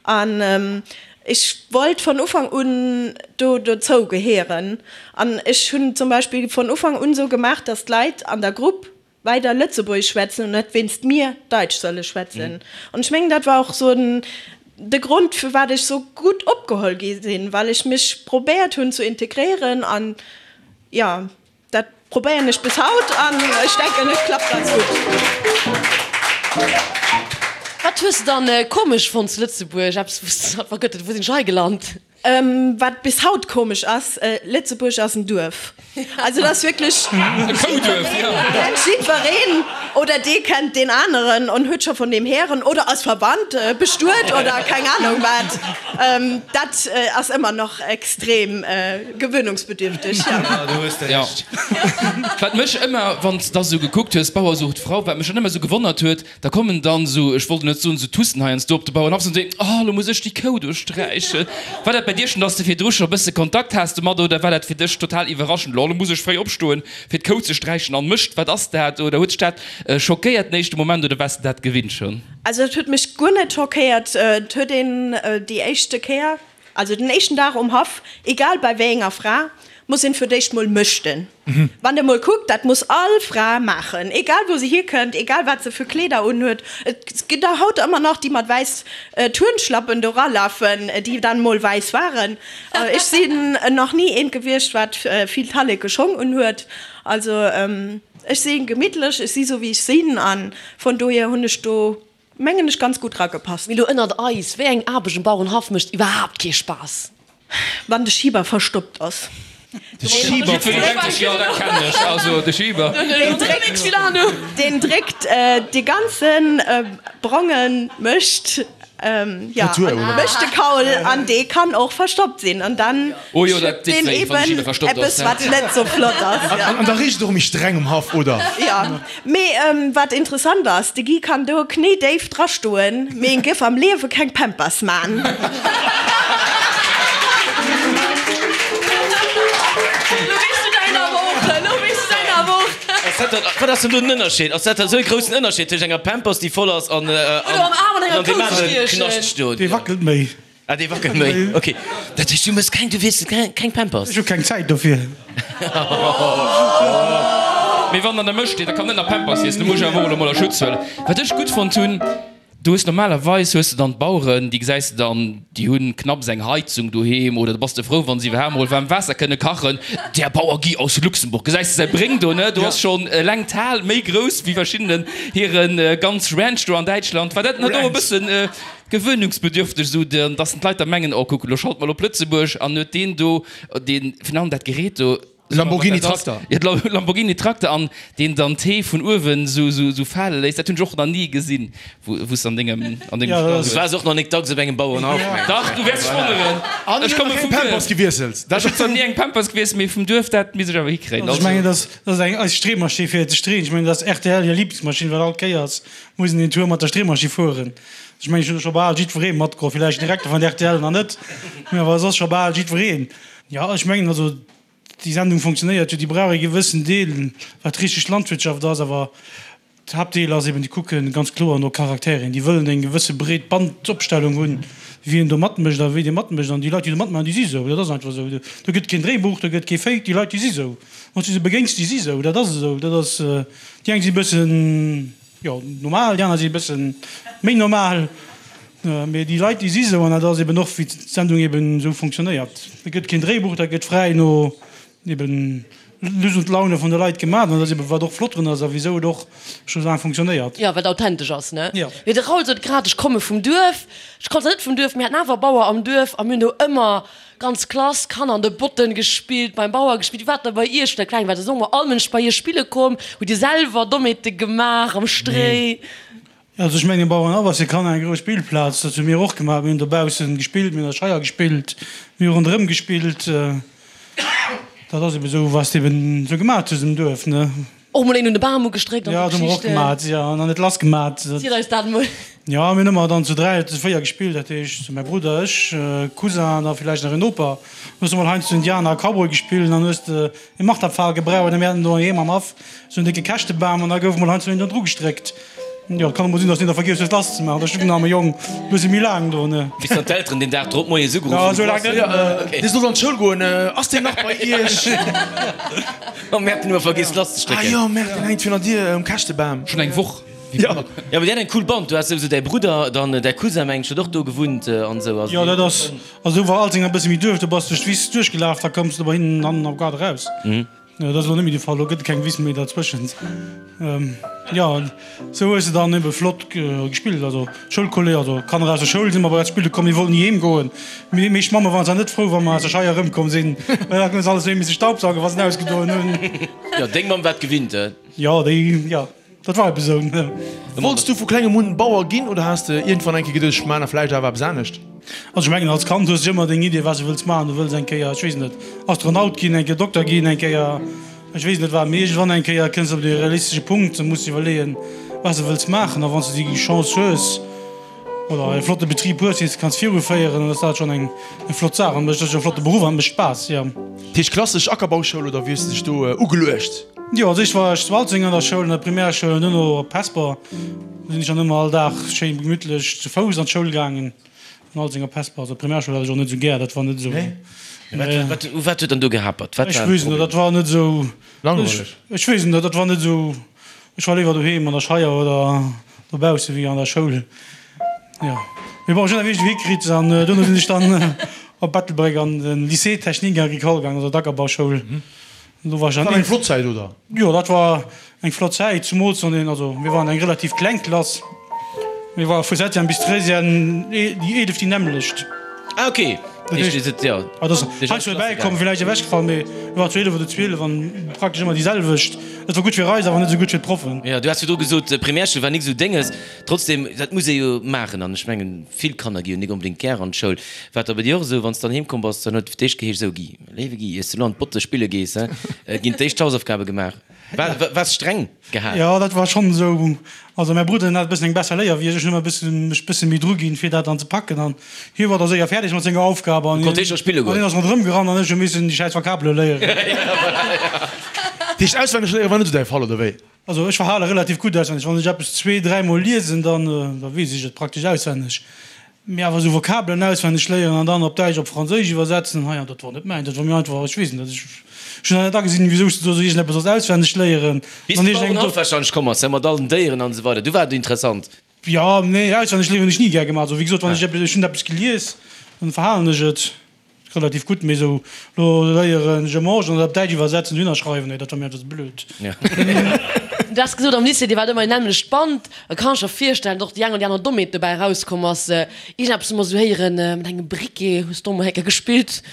an ech wollt von Ufank un do dozou gehéieren an ech hunn zum Beispill von Ufank un esou gemaach, datt d'Leit an der Grupp weider Lëtzebuergesch schwätzen und net wéinst mir Daitsch solle schwätzen. An ech mengen, dat war och sou de Grond, firwat ech sou gutt opgeholl gi sinn, well ech mech probéiert hunn ze integréieren. An jo, dat probéieren ech bis haut an ech denken, et klappt ganz gutt. Wat hues de dann komesch fonnt zu Lëtzebuerg? Eppes, wou s de gesot hues, Gott, wou sinn ech hei gelant? Wat bis haut komesch ass, Lëtzebuerg ass en Duerf. Also dat ass wierklech, E Kouduerf, jo. Kennt jiddwereen. Oder dee kennt deen aneren an huet scho vun deem héieren oder ass verwannt, bestuet oder keng Ahnung wat. Dat ass ëmmer nach extrem gewöhnungsbedürftig, jo. Do hues de Jo. Recht. Wat mech ëmmer, wann s de da sou gekuckt hues, Bauer sucht Frau, wat mech dann ëmmer sou gewonnert huet, Da kommen dann sou, ech wollt net soen sou Tussen heiansdo op de Bauernhaff an soen, oh lo muss ech déi Kou do sträichen. War dat bei dir schon, dass de virdru scho bësse Kontakt has domat oder war dat fir dech total iwwerraschend, lo muss ech fréi opstoen fir d'Kou ze sträichen an Mëscht, wat ass dat? Oder huet dech dat schockéiert den éischte Moment oder waars de dat gewinnt schon? Also et huet mech guer net schockéiert. Et huet een déi éischte Kéier, also den éischten Dag um Haff, egal bei wéi enger Fra, muss een fir d'éischt mol mëschten. Wann der mol kuckt, dat muss all Fra maachen, egal wou se hierkënnt, egal wat se fir Kleeder unhuet. Et ginn der haut ëmmer nach, déi mat wäiss Turnschlappen do ralafen, déi dann mol wäiss waren. Ech sinn nach ni eent gewiescht, wat vill talleke Schong unhuet. Also ech si gemittlech, ech si sou wéi ech sinn a vun dohier hunn ech do, mengen ech, ganz gutt ragepasst. Mee lo ënnert eis, wéi eng Aarbecht um Bauerenhaff mécht iwwerhaapt kee Spaass? Wann de Schieber verstoppt ass. De Schieber Deen dréckt dee ganze bronge Mëscht, jo, Mëscht de Kaul an dee kann och verstoppt sinn an dann schëppt deen eben eppes wat net sou flott ass. An da richt et och méi streng um Haff, oder? Jo. Mee wat interessant ass, de Guy kann do knéidéif drastoen, mee en géif am Liewe keng Pampers maan. Wat ass denn do den Ënnerscheed? Ass dat esou e groussen Ënnerscheed tëscht enger Pampers déi voll ass an an deem anere Knascht do? Dee wackelt méi. Ah, dee wackelt méi, ok. Dat heescht, du mëss keng, du wiesselt keng Pampers? Ech hu keng Zäit dofir. Mee wann an der Mëscht steet, da kann net nach Pampers wiesselen, do muss ech awer och elo mol a Schutz huelen. Wat ech gutt fonnt hunn, du hues normalerweis hues de dann d'Baueren, déi gesäis de dann, déi hunn knapps eng Heizung doheem oder da bass de frou, wa se iwwerhaapt mol waarm Waasser kënne kachen. Der Bauer Guy aus Luxemburg, gesäis de säi Bréng do, ne? Do ass schonn eleng d'Hal méi grouss wéi verschiddenen hire ganz Ranch do an Däitschland. War dat net och e bëssen Gewöhnungsbedürfteg, esou dass d'Leit da mengen, oh kuck, elo schalte mer op Lëtzebuerg an huet deen do deen, virun allem dat Gerät do, Lamborghini Trakter. Jo, de Lamborghini Trakter an deen dann d'Hee vun uewen esou fale léisst, dat hunn ech och nach ni gesinn, wou s de an dengem an dengem Stall. Du waars och nach nik dacks op engem Bauerenhaff, mengen ech. Dach, du wäers dech wonneren. An Ech huet komme nach vum keng Duerf. Pampers gewiesselt. Ech hunn zwar ni eng Pampers gewiesselt, mee vum Duerf, dat misst ech awer hikréien. Also ech mengen, dat ass eng eis Streemaschinn fir ze streeën. Ech mengen, dat ass rtl hir Liblingsmaschinn, well all Kéiers muss een een Tour mat der Streemaschinn fueren. Ech mengen, ech hunn do scho bal jiddweree matgeholl, villäicht den Direkter vun der rtl nach net, mä awer soss scho bal jiddwereen. Jo, ech mengen also, déi Sendung funktionéiert jo, déi brauch ee gewëssen Deel, wat richteg Landwirtschaft ass, awer d'Haaptdeel ass eben, déi kucke ganz kloer no Charakteren, déi wëllen eng gewësse breet Bandopstellung hunn, wien do matmécht a wéi dee matmécht. An déi Leit, déi do matmaachen, déi si sou, dat ass einfach esou. Do gëtt keen Dréibuch, do gëtt kee Fake, déi Leit, déi si sou. Wann s du se begéins, déi si sou, dat ass esou. Dat ass, déi eng si e bëssen. Jo, normal, déi aner si e bësse méi normal, mee déi Leit, déi si sou, an dat ass eben och, wéi d'Sendung eben esou fonctionnéiert. Et gëtt keen Dréibuch, dat gëtt fräi no eben Lust und Laune vun de Leit gemaach, an dat ass eben, wat och flott drun ass a wisou et och scho sou laang fonctionnéiert. Jo, wat authentesch ass, ne? Jo. Mee de Raoul sot grad, ech komme vum Duerf. Ech komm zwar net vum Duerf, mir haten awer Bauer am Duerf a mir hunn do ëmmer Ganz Klass, Kanner an de Botten gespillt, beim Bauer gespillt. Wéi war et da bei iech, wou der kleng waart? Ass och mol all Mënsch bei iech spille komm? Hutt dir selwer Dommheete gemaach am Stréi? Also ech mengen, Bauerenhaff ass fir Kanner eng grouss Spillplaz. Dat hu mir och gemaach. Mir hunn dobaussen gespillt, mir hunn an der Scheier gespillt, mir hu ronderëm gespillt. Dat ass eben esou, wat s de eben esou gemaach hues am Duerf, ne? Och mol een un de Bam ugestréckt an Ja, sou dat hu mer och Geschichten. gemat, jo, an dann et lass gemat. Ziel eis dat mol. Jo, mir hunn ëmmer dann zu 3 oder zu 4 gespillt, dat heescht mäi Brudder, ech, Cousin an da villäicht nach en Noper. Hues du mol heiansdo Indianer a Cowboy gespillt an dann hues de e Marterpfahl gebraucht a mir haten do heiheem am Haff sou en décke Käschtebam an da gouf mol heiansdo een do dru gestréckt. Jo, et kann och mol sinn, dass een da vergiess huet lass ze maachen, da stoung den arme Jong e bësse méi laang do, ne. Bis dann d'Elteren deen Dag drop moies ugeruff Jo, hunn, sou laang net. Okay. Dee sollt an d'Schoul goen, ass deen nach bei iech? Oh Merde, den hu mer vergiess lass ze strécken. Ah jo, Merde, deen hänkt virun der Dier um Käschtebam. Schon eng Woch. Jo. Jo, mee dir hat eng cool Band, du has souwisou däi Brudder, dann däi Cousin mengen ech huet och do gewunnt an esou. Also Jo, dat ass, also do war Alzeng e bësse méi Duerf, do bass duerch d'Wiss duerchgelaf, da koums de bei hinnen hannen am Gaart eraus. Dat ass elo net méi de Fall, elo gëtt et keng Wiss méi derzwëschent. Jo, esou hues de dann ebe flott gespillt. Also d'Schoulkolleg, also d'Kanner aus der Schoul si mat eis spille komm, déi wollten ni heem goen. Déi meescht Mamme waren zwar net frou, wa mer aus der Scheier erëmkomm sinn, well da hunn se alles erëm misse staubsaugen, wa se ausgedoen hunn. Jo, deng Mamm war et gewinnt, he? Jo, déi, jo. Dat war eben esou. Wollts du vu klengem un Bauer ginn oder has de iergendwann eng Kéier geduecht, ech maan vläicht awer eppes anescht? Also ech mengen als Kand hues de ëmmer deng Idee wat s de wëlls maachen. Du wëlls eng Kéier, ech weess net, Astronaut ginn, eng Kéier Dokter ginn, eng Kéier ech weess net wat. Mee iergendwann eng Kéier kënns de op de realistesche Punkt, da muss de iwwerleeën wat s de wëlls maachen. A wann s de déi Chance hues oder e flotte Betrib hues, deen s de kanns viruféieren, dann ass dat schonn eng flott Saach. An et ass jo e flotte Beruff an et mécht Spaass, jo. Dat heescht klassesch Ackerbauschoul oder wéi hues de dech do ugeluecht? Jo, als éischt war ech zu Alzeng an der Schoul, an der Primärschoul an duerno op Hesper. Do sinn ech dann ëmmer all Dag schéin gemütlech zu Fouss an d'Schoul gaangen, vun Alzeng op Hesper. Also d'Primärschoul hat ech och net esou gär, dat war net esou. Nee? Wat, u wat huet dann do gehapert? Wat Ech war den weess net, Problem? dat war net esou. Langweileg? Ech weess net, dat war net esou. Ech war léiwer doheem an der Scheier oder dobausse wéi an der Schoul. Jo, mee bon, ech hunn dat wierklech hikritt an duerno sinn ech dann op Ettelbréck an de Lycée technique agricole gaangen, also d'Ackerbauschoul. Do war ech Dat war eng flott Zäit, oder? Jo, dat war eng flott Zäit, zumools wann een, also mir waren eng relativ kleng Klass, mir ware vu Septième bis Treizième déi 11 déi nämmlecht. Ah ok, Dat heescht, jo, ah, dat ass heiansdo erbäikomm, villäicht ewechgefall, mee mir waren zu 11 oder 12 an praktesch ëmmer déi selwecht. Dat war gutt fir eis, awer net esou gutt fir d'Proffen. Jo, du has virdru gesot, Primärschoul war nik esou dénges. Trotzdem, dat muss ee jo maachen an ech mengen, vill Kanner gi jo nik onbedéngt gär an d'Schoul. War et da bei dir och esou, wann s de dann heem komm bass, dann huet fir d'éischt geheescht, Esou Guy, léiwe Guy, iers de elo an d'Botte spille gees, he, ginn d'éischt d'Hausaufgabe gemaach. War, waars streng gehal? Jo, dat war schonn esou. Also mäi Brudder, deen hat e bëssen eng besser Léier wéi ech. Ech hunn ëmmer e bëssen, mech e bësse méi dru ginn, fir dat dann ze packen. An hie war da séier fäerdeg mat senger Aufgab an Du konnt hie scho spille goen. hien ass ronderëm gerannt an ech hu missen déi schäiss Vokabele léieren. Dat heescht, auswenneg léiere war net esou däi Fall, oder wéi? Also ech verhale relativ gutt auswenneg. Wann ech eppes zwee, dräimol liesen, dann, da weess ech et praktesch auswenneg. Mee awer esou Vokabelen auswenneg léieren an dann op Däitsch, op Franséisch iwwersetzen, hei, dat wor net mäin, dat wor mir einfach, ech weess net, ech hunn dat net agesinn, wisou s de do esou iergendeppes solls auswenneg léieren. Bis de Bauerenhaff wahrscheinlech komm ass, mat all den Déieren an esou weider, du war et interessant. Jo, nee, auswenneg léieren hunn ech ni gär gemaach. Also wéi gesot, wann ech eppes, ech hunn eppes gelies, dann verhalen ech et. Relativ gutt, mee sou lo léieren je mange an dat op Däitsch iwwersetzen, dohinner schreiwen, nee, dat war mir einfach ze blöd. Du has gesot am Lycée, dir waart ëmmer en nämmlecht Band. Da kann ech mer virstellen, datt och déi eng oder déi aner Dommheet dobäi erauskomm ass. Iergendeppes hu mer sou héieren, mat engem Briquet hues de och mol eng Kéier gespillt.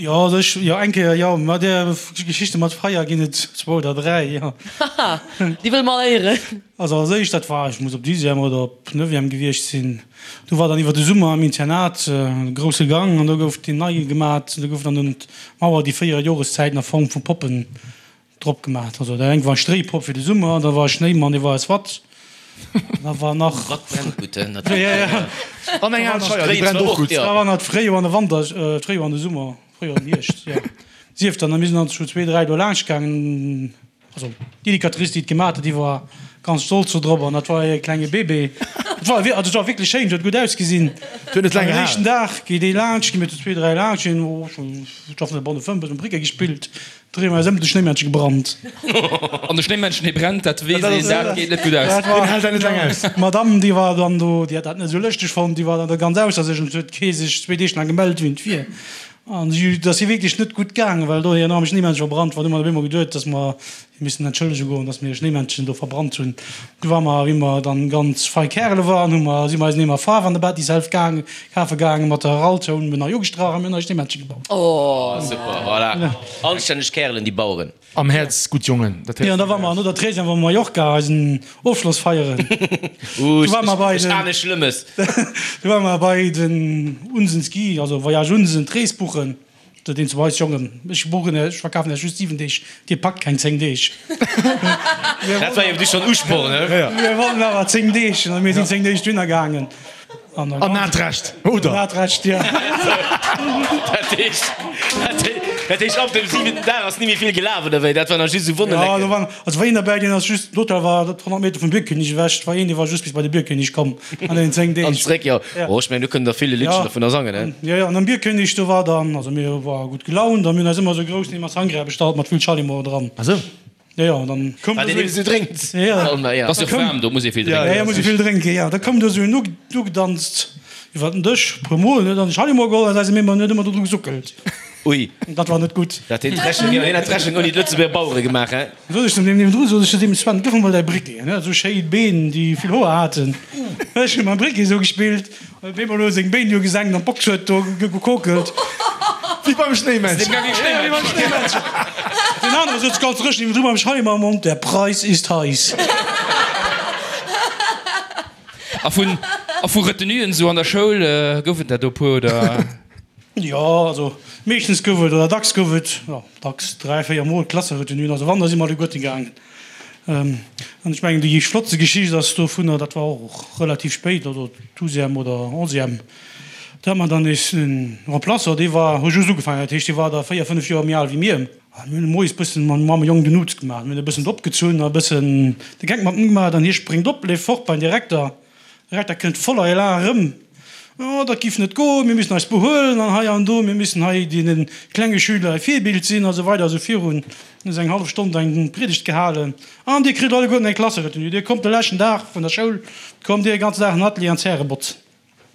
Jo, also ech, jo, eng Kéier, jo, ma där Geschichte mat Feier ginn et zwou oder dräi, jo. Haha, déi wëlle mer all héieren. Also als éischt, dat war, ech muss op Dixième oder op Neuvième gewiescht sinn, do war dann iwwer de Summer am Internat e grousse Gang an do gouf deen nei gemat. Do goufen dann un d'Mauer déi 4 Joreszäiten a Form vu Poppen drop gemat. Also dat eng war Stréipopp fir de Summer, da war e Schnéimann, dee war aus Watt, da war nach. Watt brennt gutt, hein, natierlech. Ja, ja. An eng al Scheier, déi brennt och gutt. Da war nach d'Fréijoer an de Wanter, d'Fréijoer an de Summer, Fréijoer an den Hierscht, jo. Sief dann, a mir sinn dann zu zwee, dräi do laanscht gaangen. Also d'Educatrice, déi et gemaat huet, déi war ganz stolz do drop an dat war hir klenge Bébé. Et war, also et war wierklech schéin, et huet gutt ausgesinn. Et huet net laang Am gehalen. éischten Dag geet ee laanscht, gi mir zu zwee, dräi laanscht, hien, oh, ech hoffen, bonne fëmm, bëssen Briquet gespillt, dréi mer eis ëm, de Schnéimännche gebrannt. An de Schnéimännchen, dee brennt, dat weess een, dat geet net gutt aus. Dat war, Deen hält dat net laang aus. D'Madame, déi war dann do, déi hat dat net esou lëschteg fonnt, déi war dann do ganz ausser sech an et huet kee sech zwee Deeg laang gemellt, wien et wier. An si, et ass hir wierklech net gutt gaangen, well do hir am Schnéimännche verbrannt war. Du hu mer op eemol geduet, dass mer hir missen entschëllege goen, dass mir e Schnéimännchen do verbrannt hunn. Du war mer, wéi mer dann ganz fei Kärele waren, hu mer, si mer eis en Eemer Faarf an der Bettishälf gaang, kafe gaangen mat der Raltoun, mir nei ugestrach a mir hunn nei Schnéimännche gebaut. Oh, super, voilà. Anstänneg Kärelen, déi Baueren. Am Häerz gutt Jongen, dat héiert Jo, an da war mer no der Treizième war mer Mallorca eisen Ofschloss feieren. Uh, Du war mer bei ech den, ahne Schlëmmes. du war mer bei den Unsen Ski, also Voyage Unsen, d'Rees buchen. Sot een zu eis, Jongen, ech buchen, ech verkafen iech just 7 Deeg, dir packt keng 10 Deeg. Dat war jo du schonn Usporn, he? Mir wollten awer 10 Deeg, an mir sinn 10 Deeg dohinner gaangen. An hat Recht, oder? An hat Recht, ja. Dat heescht, dat heescht, ab dem siwenten Dag ass ni méi vill gelaf, oder wéi? Dat war nach just esou Wonnelecken. Ja, do waren, also war een derbäi, deen ass just, den Hotel war 100 Meter vum Bierkönig ewech, et war een, dee war just bis bei de Bierkönig komm an deenen 10 Deeg. An zréck, jo. Oh, ech mengen, do kënnen der vill e Liddchen dovunner sangen, he? Jo, jo, an am Bierkönig, do war dann, also mir ware gutt gelaunt a mir hunn eis ëmmer esou e groussen Eemer Sangria bestallt mat vill Schallimo dran. Ah sou. Jo, jo, dann koum Wat do een esou eben esou drénkt. Ja, ja. Et ass jo waarm, do muss ee vill Ja, drénken. ja, muss ee vill drénken, ja. Da koum do esou en ugedanzt iwwer den Dësch, e puer Mol, huet an de Schallimo geholl an eise Mémmer huet ëmmer do dru gesuckelt. Ui. Dat war net gutt. Dat hien d'Rechnung, jo, hien hat d'Rechnung ouni d'Lëtzebuerger Bauere gemaach, hä? Sot ech zum deem niewendru, sot ech zu deem, Sven, gëff mer mol däi Briquet. En hat esou schéi Been, déi vill Hoer haten. Ech hu mam Briquet esou gespillt. Huet op eemol elo seng Béin do gesenkt an d'Box huet do gekokelt. Wéi beim Schnéimännchen. Wéi beim Schnéimännchen. Deen anere souz ganz dréchen niewendru mam Scheimer am Mond, Der Preis ist heiß. A vun, a vu Retenuen esou an der Schoul, gouf et der do e puer, oder? Jo, also meeschtens gouf et, oder dacks gouf et, jo, dacks 3, 4 Mol Klasseretenuen. Also wann, da si mer alleguerten gaangen. An ech mengen, déi flottste Geschicht ass dovunner, dat war och relativ spéit, also Douzième oder Onzième, do hat mer dann nees en Remplaçant, dee war, huet just ugefaangen, dat heescht, dee war da 4, 5 Joer méi al wéi mir. A mir hunn moies bëssen mam mam Jong den Uz gemaach. Mir hunn e bëssen opgezunn a bëssen de Geck mat em gemaach. An hie spréngt op, leeft fort beim Direkter. De Direkter kënnt voller Elan erëm, Oh, dat giff net goen, mir müssen eis behuelen an hei an do, mir müssen hei deene klenge Schüler e Virbild sinn a sou weider a sou virun. Huet eng hallef Stonn eng Priedegt gehalen. An dir kritt alleguerten eng Klasseretenue. Dir kommt de leschten Dag vun der Schoul, kommt dir e ganzen Dag an den Atelier an d'Zäre botzen.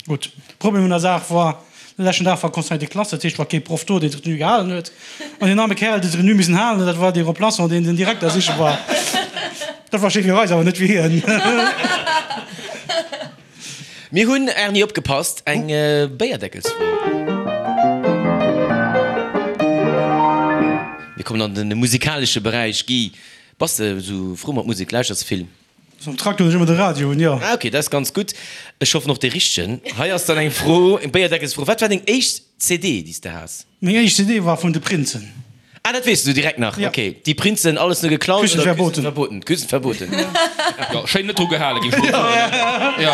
Gutt, Problem un der Saach war, de leschten Dag war Conseil de classe, dat heescht, war kee Proff do, deen d'Retenue gehalen huet. An deen arme Kerl, deen d'Retenue missen halen huet, dat war dee Remplaçant, deen den Direkter siche war. Dat war schéi fir eis, awer net fir hien. Mir hunn, Erni, opgepasst, eng Béierdeckelsfro. Mir kommen an de musikalesche Beräich. Guy, bass de esou frou mat Musek? Lauschters de vill? Am Traktor hunn ech ëmmer de Radio un, jo. Ah ok, dat ass ganz gutt. Ech hoffen och dee richtegen. Hei ass dann eng Fro, eng Béierdeckelsfro. Wat war deng éischt CD, déi s de has? Meng éischt CD war vun de Prinzen. Ah, dat weess du direkt nach? Ja. Ok, Die Prinzen, alles nur geklaut Küssen oder verboten. Küssen verboten? Küssen verboten. Jo, schéin net dru gehale gi, ech wollt soen. Jo.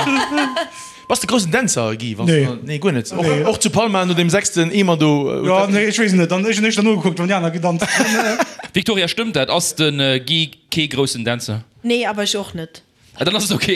Bass de groussen Dänzer, Guy? Wanns Nee. du, nee, guer net. Och, Nee. och zu Palma no deem sechsten Eemer do? Jo, nee, ech weess net. Dann, ech hunn éischter nogekuckt, wann déi aner gedanzt hunn. Victoria, stëmmt dat? Ass de Guy kee groussen Dänzer? Nee, awer ech och net. Ah, dann ass et ok.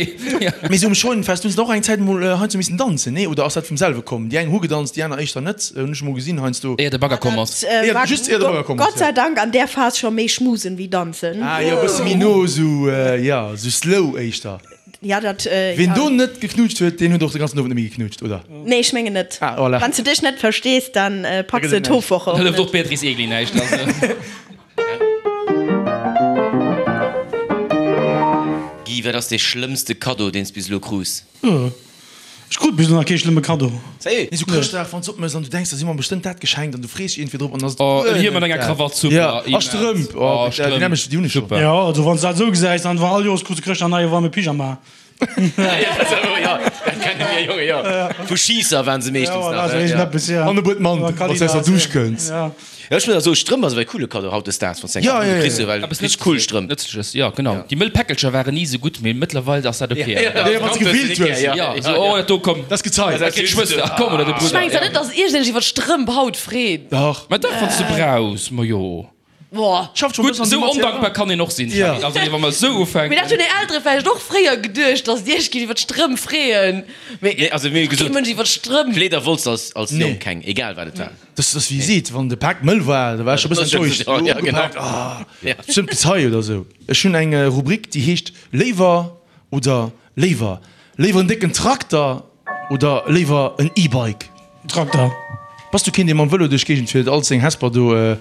Mee sou um Scheunenfest hunn se och eng Zäit mol heiansdo missen danzen, nee? Oder ass dat vum selwe komm? Déi eng hu gedanzt, déi aner éischter net, hunn ech mol gesinn heiansdo. Éier de Bagger komm ass. Dat Éier, war just éier de Bagger komm ass, Gott sei ja. Dank an där Phas scho méi schmusen wéi danzen. Ah jo, e bësse méi no, sou, jo, sou slow éischter. Ja, dat, Ween ja. do net geknutscht huet, deen huet och de ganzen Owend net méi geknutscht, oder? Nee, ech mengen net. Ah, voilà. Wann s de dech net verstees, dann Da packs gëtt de et näischt. d'Hofwoche Da och hëlleft och net. d'Beatrice Egli näischt, also. Guy, wat ass dee schlëmmste Kaddo, deen s bis elo krus? Ech krut bis elo nach kee schlëmme Kaddo. Sérieux? Nee, sou Chrëschtdag, wann s opmëss an du denks, da si mer bestëmmt dat geschenkt an du frees dech iergendwéi drop an da ass et Oh, guer en Hiem net mat enger dat. Krawatt, super, Ja, a immens. Strëmp, oh, Oh, déi Strëmp, nämlech, déi hunn ech schonn. super. Jo, also wann s dat esou gesäis, dann war all Joers krus de Chrëschtdag en neie waarme Pyjama. Jo, dat kenne mir Jonge, jo. Vu Schiisser waren se meeschtens nach, jo. An e Buet Mandel, wann s de aus der Dusch kënns. Jo, ech muss awer soen, Strëmp ass awer e coole Kaddo hautdesdaags, wann s de eng Ja, ja, ja. kriss, well Eppes richteg cool Strëmp. Nëtzleches, jo, genau. Déi mëll Päckelcher waren ni esou gutt, mee mëttlerweil ass dat ok. Ja, ja, wann s de gefillt hues. Jo, esou, oh, dat do, komm. Dat ass Gezei. Dat kritt d'Schwëster, ach komm, oder de Ech Brudder. mengen zwar net, dass iergendeen sech iwwer d'Strëmp haut freet. Dach. Mä dach, wann s de brauchs, ma jo. Boah. Schafft schon Gutt, bëssen an esou der Matière. ondankbar kann een och sinn, Ja. Charly. Also, wa mer esou Mee ufänken. dat hunn är Eltere vläicht och fréier geduecht, dass dir iech gitt iwwer d'Strëmp freeën. Mee Nee, also mir hu kee gesot, Mënsch iwwer d'Strëmp. Kleeder wollts de als, als Nee. Jong keng, egal wat et war. Das ass wéi seet, wann de Pak mëll war, da war ech scho bëssen enttäuscht. Ja, ja, genau. Ugepaakt, ah, Ja. bestëmmt Gezei oder sou. Ech hunn eng Rubrik, déi heescht Léiwer oder léiwer. Léiwer en décken Trakter oder léiwer en E-Bike? Trakter. Bass du keen, dee mam Vëlo duerch d'Géigend fiert, all seng Hesper do?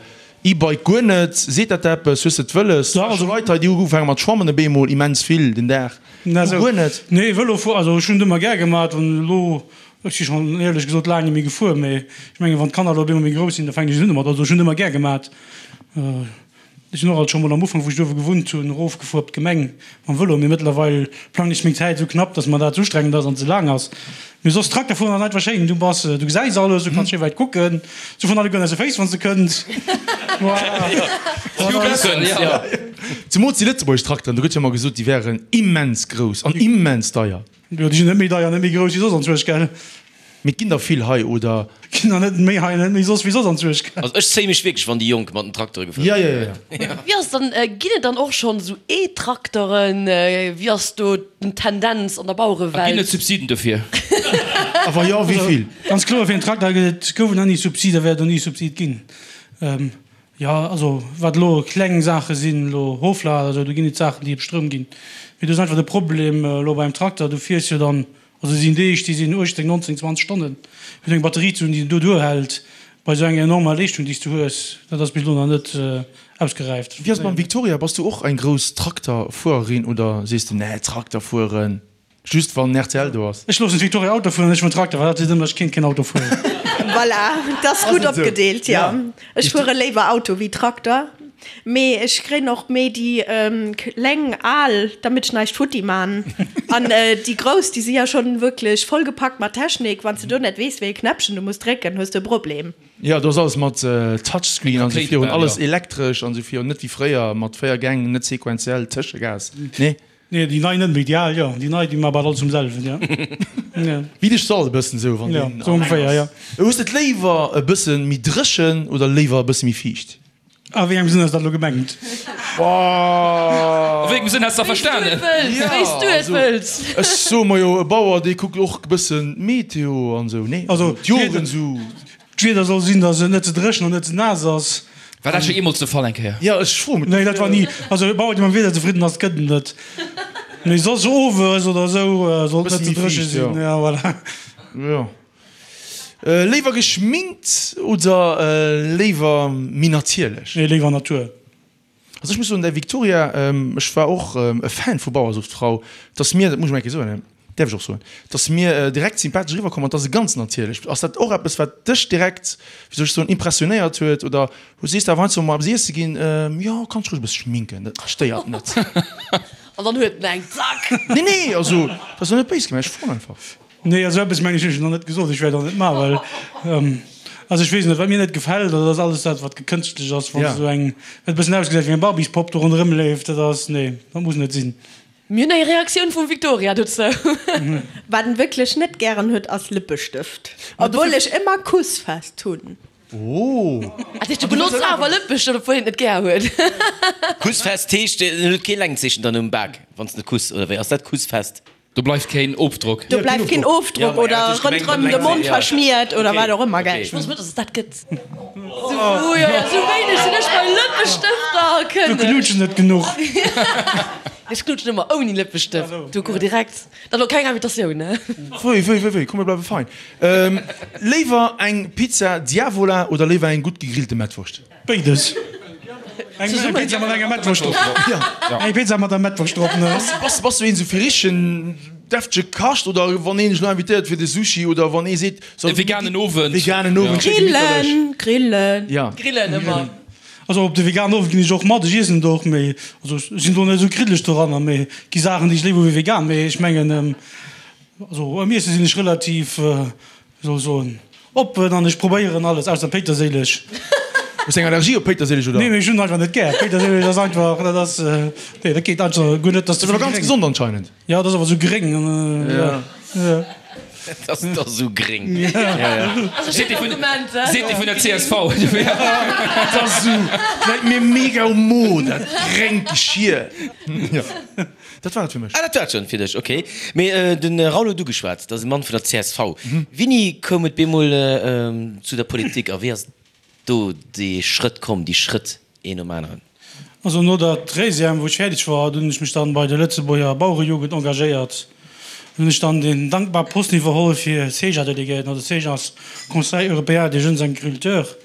E-Bike guer net? Seet dat der eppes? Hues de et wëlles? Ja, also- Leit hei, déi hu ugefaange mat schwammen op eemol immens vill den Dag. Na, Du sou. guer net? Nee, Vëlo fuer, also ech hunn et ëmmer gär gemat an elo, ech si schonn éierlech gesot laang net méi gefuer, mee ech mengen, wann d'Kanner elo op eemol méi grouss sinn, da fänken ech un domat. Also ech hunn et ëmmer gär gemat. Ech sinn och alt scho mol am Ufank, wou ech do uewe gewunnt hunn, erofgefuer op d'Gemeng mam Vëlo, mee mëttlerweil plangen ech meng Zäit esou knapp, dass mer dat ze ustrengend ass an ze laang ass. Mee soss Trakter fueren ass einfach schéin, du bass, du gesäis alles, du kanns schéi wäit kucken, se vun alleguerten aus de Féiss wann s de kënns. Zemools déi lëtzebuergesch Trakteren, do gëtt jo ëmmer gesot, déi wären immens grouss an immens deier. Jo, déi sinn net méi deier, net méi grouss wéi soss anzwuersch, gell? Mee et ginn der vill hei, oder? Ginn der net méi hei, net méi soss wéi soss anzwuersch, gell? Also ech zéie mech wierklech, wann déi Jonk mat den Traktere gefuer Ja, ja, ja, ja. Wéi ass dann, ginn et dann och schonn esou E-Trakteren? Wéi ass do den Tendenz an der A ginn et Bauerewelt? Subsiden dofir? A wa jo, wéi vill? Ganz kloer, fir en Trakter gëtt et, gouf et nach ni Subside, wäert et och ni Subside ginn. Jo, also wat elo kleng Saache sinn, elo Hoflader, esou, do ginn et Saachen, déi op Stroum ginn. Mee do ass einfach de Problem elo beim Trakter, du fiers jo dann, also et sinn Deeg, déi sinn 18, 19, 20 Stonnen, fir do eng Batterie ze hunn, déi do duerhält bei esou enger enormer Leeschtung, déi s du hues, dat ass bis elo nach net ausgeräift. Wéi ass et mam Victoria? Bass du och eng grouss Trakterfuererin oder sees de, nee, Trakter fueren? Just wann rtl do ass. Ech loossen d'Victoria Auto fueren, ech fueren Trakter, well dat seet ëmmer, ech kéint keen Auto fueren. Voilà, et ass gutt opgedeelt, jo. Ech fuere léiwer Auto wéi Trakter. Mee ech kréien och méi déi kleng al, damit ech näischt futti man. An déi grouss, déi si ja schonn wierklech vollgepackt mat Technik. Wann s de do net weess, wéi ee Knäppchen du muss drécken, hues de e Problem. Jo, do ass alles mat Touchscreen an esou virun, alles elektresch an esou virun, net wéi fréier mat 4 Gäng, net sequenziell, Tëschegas, nee. Nee, déi nei net méi, déi al jo, déi nei déi man bal alles um selwen, jo. Wéi de Stall e bëssen esou, wann deen Jo, sou ongeféier, jo. Hues de et léiwer e bësse méi dréchen oder léiwer e bësse méi fiicht? A wéi engem Sënn ass dat elo gemengt? A wéi engem Sënn häss de verstanen? Wéi s du et wëlls. Ech soe mer jo, e Bauer, dee kuckt och e bëssen d'Meteo an esou, nee? Also d'Joren esou. D'Wieder soll sinn, datt et net ze dréchen an net ze naass ass. War dat scho jeemools de Fall eng Kéier? Jo, ech froe mech. Nee, dat war ni. Also e Bauer, dee mam Wieder zefridden ass, gëtt et net. Mee soss owes oder esou soll et net ze dréche sinn. Ja, voilà. Jo. Léiwer geschminkt oder léiwer méi natierlech? Nee, léiwer Natur. Also ech muss soen, däi Victoria, ech war och e Fan vu Bauersuchtfrau, 't ass mir, dat muss ech mol eng Kéier soen, däerf ech och soen, 't ass mir direkt sympathesch eriwwer komm an 't ass e ganz natierlech. Ass dat och eppes wat dech direkt, wéi soll ech soen, impressionéiert huet oder sees de awer heiansdo mol eppes iesse ginn, jo kanns dech roueg e bësse schminken, dat stéiert net. An dann huet en eng, zack! Nee, nee, also dat ass jo net béis gemengt, ech froen einfach. Nee, esou eppes mengen ech hunn ech nach net gesot. Ech wäert och net maachen, well also ech weess net, wat mir net gefält, dat ass alles dat, wat gekënschtlech ass, wann esou eng, wat e bëssen ausgesäit wéi eng Barbiespopp do ronderëm leeft, dat ass, nee, dat muss net sinn. Mir hunn eng Reaktioun vum Victoria dozou. Wat en wierklech net gären huet ass Lëppestëft, obwuel ech ëmmer Kussfest hunn. Oh! Dat heescht, du benotz awer Lëppestëft, obwuel een et net gär huet? Kussfest heescht, en huet kee Längzeechen dann um Bak, wann s de kuss, oder wéi ass dat, Kussfest? Do bleift keen Ofdrock. Do bleift keen Ofdrock oder rënderëm de Mond verschmiert oder wat och ëmmer, gell? Ech wosst net, dass et dat gëtt. Sou, jo, jo, sou wéineg sinn ech bei Lëppestëfter kënnen. Du knuutsch net genuch. Ech knuutschen ëmmer ouni Lëppestëft. Du kuch direkt. Dat elo keng Invitatioun, ne? Wéi, wéi, wéi, wéi, komm mir bleiwe fein. Léiwer eng Pizza Diavola oder léiwer eng gutt gegrillte Mettwurscht? Béides. Eng Pizza mat enger Mettwurscht drop. Eng Pizza mat der Mettwurscht drop, ne? Bass, bass du een sou fir richtegen deftege Kascht oder wann een dech lo invitéiert fir de Sushi oder wann ee seet, E veganen Owend. Veganen Owend, schéi gemitterlech. Grillen, grillen. Ja. Grillen ëmmer. Also op de veganen Owend ginn ech och mat, ech iessen et och, mee also ech sinn do net esou kriddeleg doranner, mee et gi Saachen déi ech léiwer hu wéi vegan, mee ech mengen also am Iesse sinn ech relativ Wéi soll ech soen, oppen an ech probéieren alles, ausser Péiterséileg. Hues eng Allergie op Péiterséileg oder? Nee, mee ech hunn einfach net gär. Péiterséileg ass einfach, dat ass, nee, dat geet einfach guer net. Dat ass awer ganz gesond anscheinend. Jo, dat ass awer esou gréng. Ja. Dat ass da sou gréng. Seet dee vun, seet dee vun der csv. Dat ass esou, läit mir mega um Mo, dat gréngt Geschier. Jo. Dat war et fir mech. Ah, dat war et schonn fir dech, ok. Mee de Raoul huet ugeschwat, dat ass e Mann vun der csv. Wéini koum et bemol zu der Politik a wéi ass do dee Schrëtt komm, déi Schrëtt een nom aneren? Also no der Treizième, wou ech fäerdeg war, dunn hunn ech mech dann bei der Lëtzebuerger Bauerejugend engagéiert. Dunn hunn ech dann deen dankbare Posten iwwerholl fir CEJA-Delegéierten, also CEJA ass Conseil européen des jeunes agriculteurs.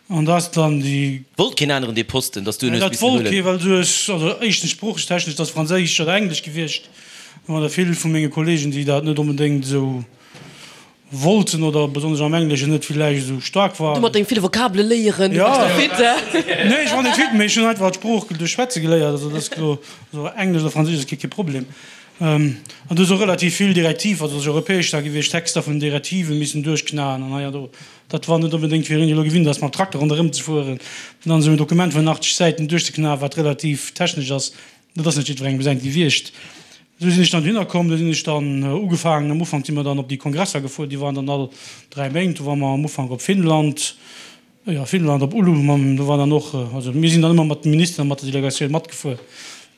An da ass dann déi. Wollt keen aneren dee Posten, dass du en hues Dat missen wollt huelen? kee, well du hues, also éischtens sproochtechnesch, dat ass Franséisch oder Englesch gewiescht. Do waren der vill vu menge Kollegen, déi dat net onbedéngt esou wollten oder besonnesch am Engleschen net villäicht esou staark Du waren. mat dengem ville Vokabele léieren, du bass doch fit, he? Nee, ech war net fit, mee ech hunn einfach d'Sprooch duerch Schwätze geléiert. Also dat ass elo, also Englesch oder Franséisch ass kee Problem. An du hues och relativ vill Direktiv, also ass europäesch da gewiescht, Texter vun Direktive missen duerchknaen an hei an do. Dat war net onbedéngt fir een, dee elo gewinnt ass, mam Trakter ronderëm ze fueren, dann esou en Dokument vun 80 Säiten duerchzeknaen, wat relativ technesch ass. Dat ass net jiddwerengem säint gewiescht. Esou sinn ech dann dohinner komm. Do sinn ech dann ugefaangen. Am Ufank si mer dann op déi Kongresser gefuer, déi waren dann all 3 Méint. Do ware mer am Ufank op Finnland, jo, Finnland, op Oulu mam, do war dann och, also mir sinn dann ëmmer mat de Ministeren a mat der Delegatioun matgefuer.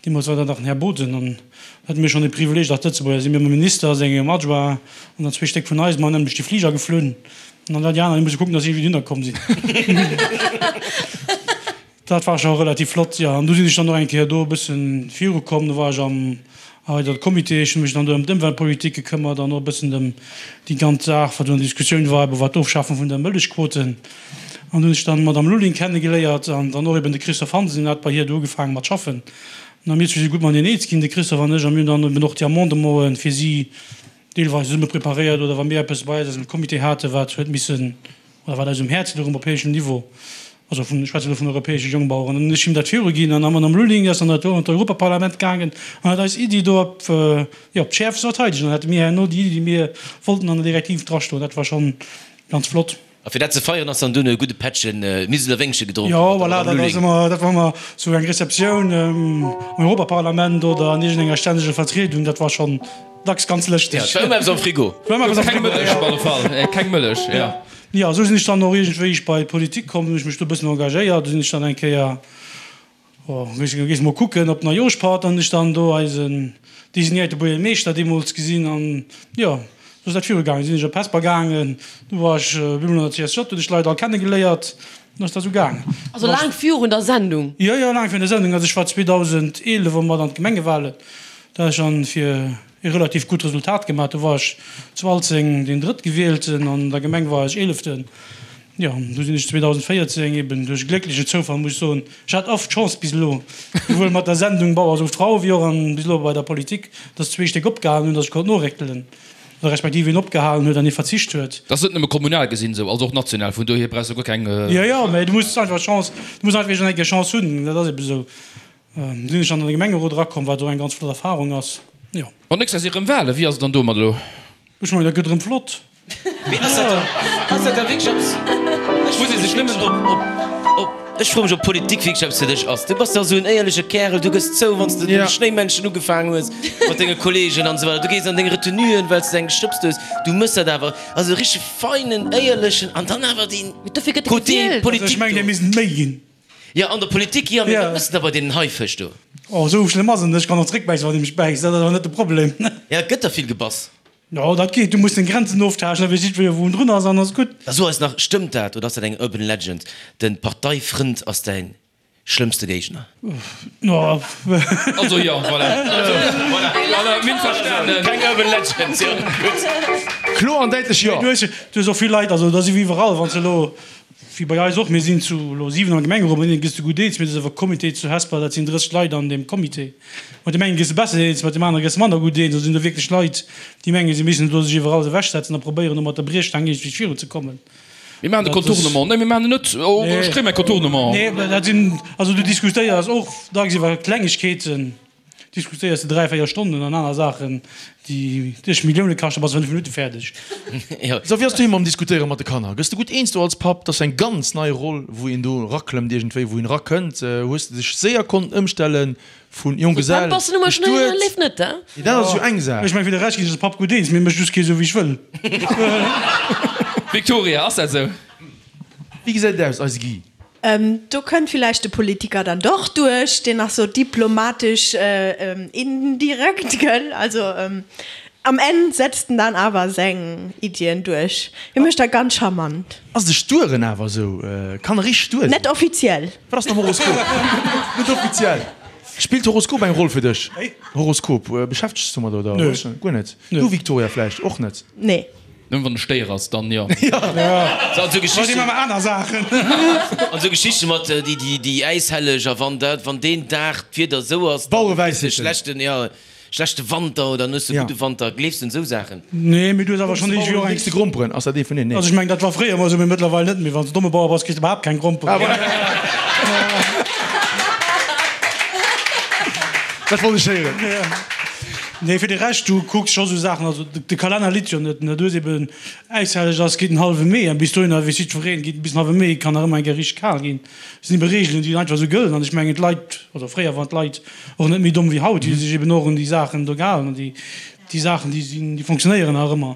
Deemools war dat nach den Här Boden an dat hate mir schonn de Privileeg als Lëtzebuerger si mir mam Minister, sengem Adjoint an dann zwee Stéck vun eis mam nämlech de Fliger geflunn an dann déi aner déi musse kucken, datt si iergendwéi dohinner komm sinn. Dat war scho relativ flott, jo. An du sinn ech dann och eng Kéier do e bëssen virukomm. Do war ech am erweiderte Comité. Ech hu mech dann do ëm d'Ëmweltpolitik gekëmmert an och e bëssen ëm déi ganz Saach, wat do an Diskussioun war, ebe wat d'Ofschafung vun der Mëllechquoten. An do hunn ech dann d'Madame Lulling kennegeléiert an dann och eben de Christophe Hansen, deen hat bei hir do ugefaange mat schaffen. An mir zwee si gutt mateneen eens ginn, de Christophe an ech, a mir hunn dann eben och déi Amendementen fir si deelweis zesumme preparéiert oder wa mir eppes bei eis aus dem Comité haten, wat huet missen oder wat eis um Häerz louch um europäeschem Niveau. Also vun, ech schwätze elo vun europäesche Jongbaueren. An hunn ech him dat viruginn an am Madame Lulling ass dann dat do an d'Europaparlament gaangen an huet eis Iddi do op, jo, op d'Schäerfst verteidegt. An dann hate mir herno déi Iddi, déi mir wollten, an der Direktiv drastoen. Dat war schonn ganz flott. A fir dat ze feieren ass dann dunn e gudde Pättchen Miseler Wéngche gedronk Jo, mat der voilà, Madame dat ass Lulling. ëmmer, dat war ëmmer sou eng Receptioun am Europaparlament oder an iergendenger stänneger Vertriedung. Dat war schonn dacks ganz lëschteg. Ja, et war ëmmer eppes am Frigo. War ëmmer eppes am Keng Frigo, Mëllech ja. op alle Fall, keng Mëllech, jo. Jo, esou sinn ech dann och iergendwéi ech bei d'Politik komm, hunn ech mech do e bëssen engagéiert. Du sinn ech dann eng Kéier, oh, ech gees mol kucken op Neijooschpatt, an hunn ech dann do eisen designéierte Buergermeeschter deemools gesinn an jo, esou ass dat virugaangen. Du sinn ech op Hesper gaangen, du war ech op eemol an der CSJ, hunn ech d'Leit all kennegeléiert, dann ass dat esou gaangen. Also laang virun der Sendung? Jo, jo, laang virun der Sendung. Also ech war 2011 och mat an d'Gemengewahlen, da hat ech dann fir e relativ gutt Resultat gemaach. Do war ech zu Alzeng deen Drëttgewielten, an der Gemeng war ech Eeleften. Jo, du sinn ech 2014 eben duerch e glécklechen Zoufall, muss ech soen, ech hat oft Chance bis elo, souwuel mat der Sendung Bauer sucht Frau wéi och an bis elo bei der Politik, dass zwee Stéck opgehalen hunn, dass ech konnt noréckelen, oder respektiv een opgehalen huet an ee verzicht huet. Dat ass net nëmme kommunal gesinn esou, also och national, vun dohier brauchs de guer keng. Jo, jo, mä du muss einfach Chance, du muss einfach iergendeng Chance hunn, dat ass eben esou. Sinn ech an de Gemengerot erakomm, wat och eng ganz flott Erfahrung ass, jo. Bon, nächst Joer si rëm Walen, wéi ass et dann domat elo? Ech mengen, dat gëtt erëm flott. Mee ass dat dann, ass dat da wierklech eppes, ech Muss ee sech nëmmen. Op, op, op, ech froe mech, ob Politik wierklech eppes fir dech ass. Du bass dach esou en éierleche Kärel, du gëss zou, wann s de de Schnéimännchen ugefaangen hues mat denge Kollegen an esou weider. Du gees an deng Retenuen, well s de eng gestëbst hues. Du mëss dat awer, also e richtege feinen, éierlechen an dann awer dee Mee dofir gëtt e Côté gewielt. Also ech Politik mengen, do. där missten et méi ginn. Jo, an der Politik, jo, mee wat mëss de da bei deenen Haifësch do? Oh, esou schlëmm ass et net. Ech kann och zréckbäissen, wann ee mech bäisst. Dat ass awer net de Problem. Ja, et gëtt der vill gebass. Jo, dat geet. Du muss deng Grenzen oftaaschten, da weess jiddweree, wou en drun ass, an ass gutt. Da so eis nach, stëmmt dat oder ass dat eng Urban Legend, de Parteifrënd ass däin schlëmmste Géigner? No. Also jo, voilà. Voilà, voilà, mir hunn verstanen. Keng Urban Legend, jo, gutt. Kloer an däitlech jo. Du hues och vill Leit, also dat ass ewéi iwwerall, wann s de elo Wéi bei eis och, mir sinn zu elo 7 am Gemengerot, mat deene gëss de gutt eens, mee et ass awer Comité zu Hesper, dat sinn 30 Leit an deem Comité. Mat deem engen gëss de besser eens, mat deem anere gëss de manner gutt eens. Do sinn do wierklech Leit, déi mengen, si missten elo sech iwwerall ewechsetzen a probéieren, do mat der Briechstaang iergendwéi virunzekommen. Mir maachen de Contournement. Nee, mir maachen en net. Oh, ech kréie mäi Contournement. Nee, dat sinn, also du diskutéiers och dacks iwwer Klengegkeeten. Diskutéiers de 3, 4 Stonnen an aner Saachen, déi dech Millioune kaschten, bass de 5 Minutte fäerdeg. So, wéi ass doheem mam Diskutéiere mat de Kanner? Gëss de gutt eens do als Papp? Dat ass eng ganz nei Roll, wou een do eraklëmmt iergendwéi, wou een erakënnt. Hues de dech séier konnten ëmstellen vun Jonggesell, bestuet? Nee, dat ass jo eng Saach. Ech mengen, fir de Rescht ginn ech als Papp gutt eens, mee mécht just kee sou wéi ech wëll. Victoria, ass dat sou? Wéi gesäit et aus, eise Guy? Do kënnt villäicht de Politiker dann doch duerch, deen nach sou diplomatesch indirekt, gëll? Also am Enn setzt en dann awer seng Iddien duerch. Hie mécht dat ganz charmant. Ass de Stueren awer sou? Kann e richteg stuer sinn? Net offiziell. Wat ass mam Horoskop? Net offiziell. Spillt Horoskop eng Roll fir dech? Horoskop, beschäftegs du domat oder? Nö. Guer net? Du Victoria vläicht och net? Nee. Nëmmen wann e Stéier ass, dann jo. So, an sou Geschichten. Aner Saachen. An sou Geschichte mat déi, déi, déi Äishelleg a wann dat, wann deen Dag d'Wieder sou ass, dann hues de schlechten, jo, schlechte Wanter oder dann hues de gudde Wanter. Gleefs de un sou Saachen? Nee, mee du hues awer schonn iergendwéi och eng. Kriss de Gromperen? Ass dat ee vun deenen? Nee. Also ech mengen, dat war fréier emol sou, mee mëttlerweil net méi. Wann s de domme Bauer bass, kriss de iwwerhaapt keng Gromperen. Dat wollt ech héieren. Nee, fir de Rescht, du kucks scho sou Saachen, also de Kalenner litt jo net, ne, du hues eben Äishelleg ass, geet den hallwe Mee an bis dohinner weess jiddwereen, geet bis den hallwe Mee, kann nach ëmmer eng Kéier richteg kal ginn. Et sinn ebe Reegelen, déi einfach sou gëllen an ech mengen d'Leit, oder fréier waren d'Leit och net méi domm wéi haut, déi hu sech eben och un déi Saachen do gehalen an déi, déi Saachen, déi sinn, déi fonctionnéieren nach ëmmer.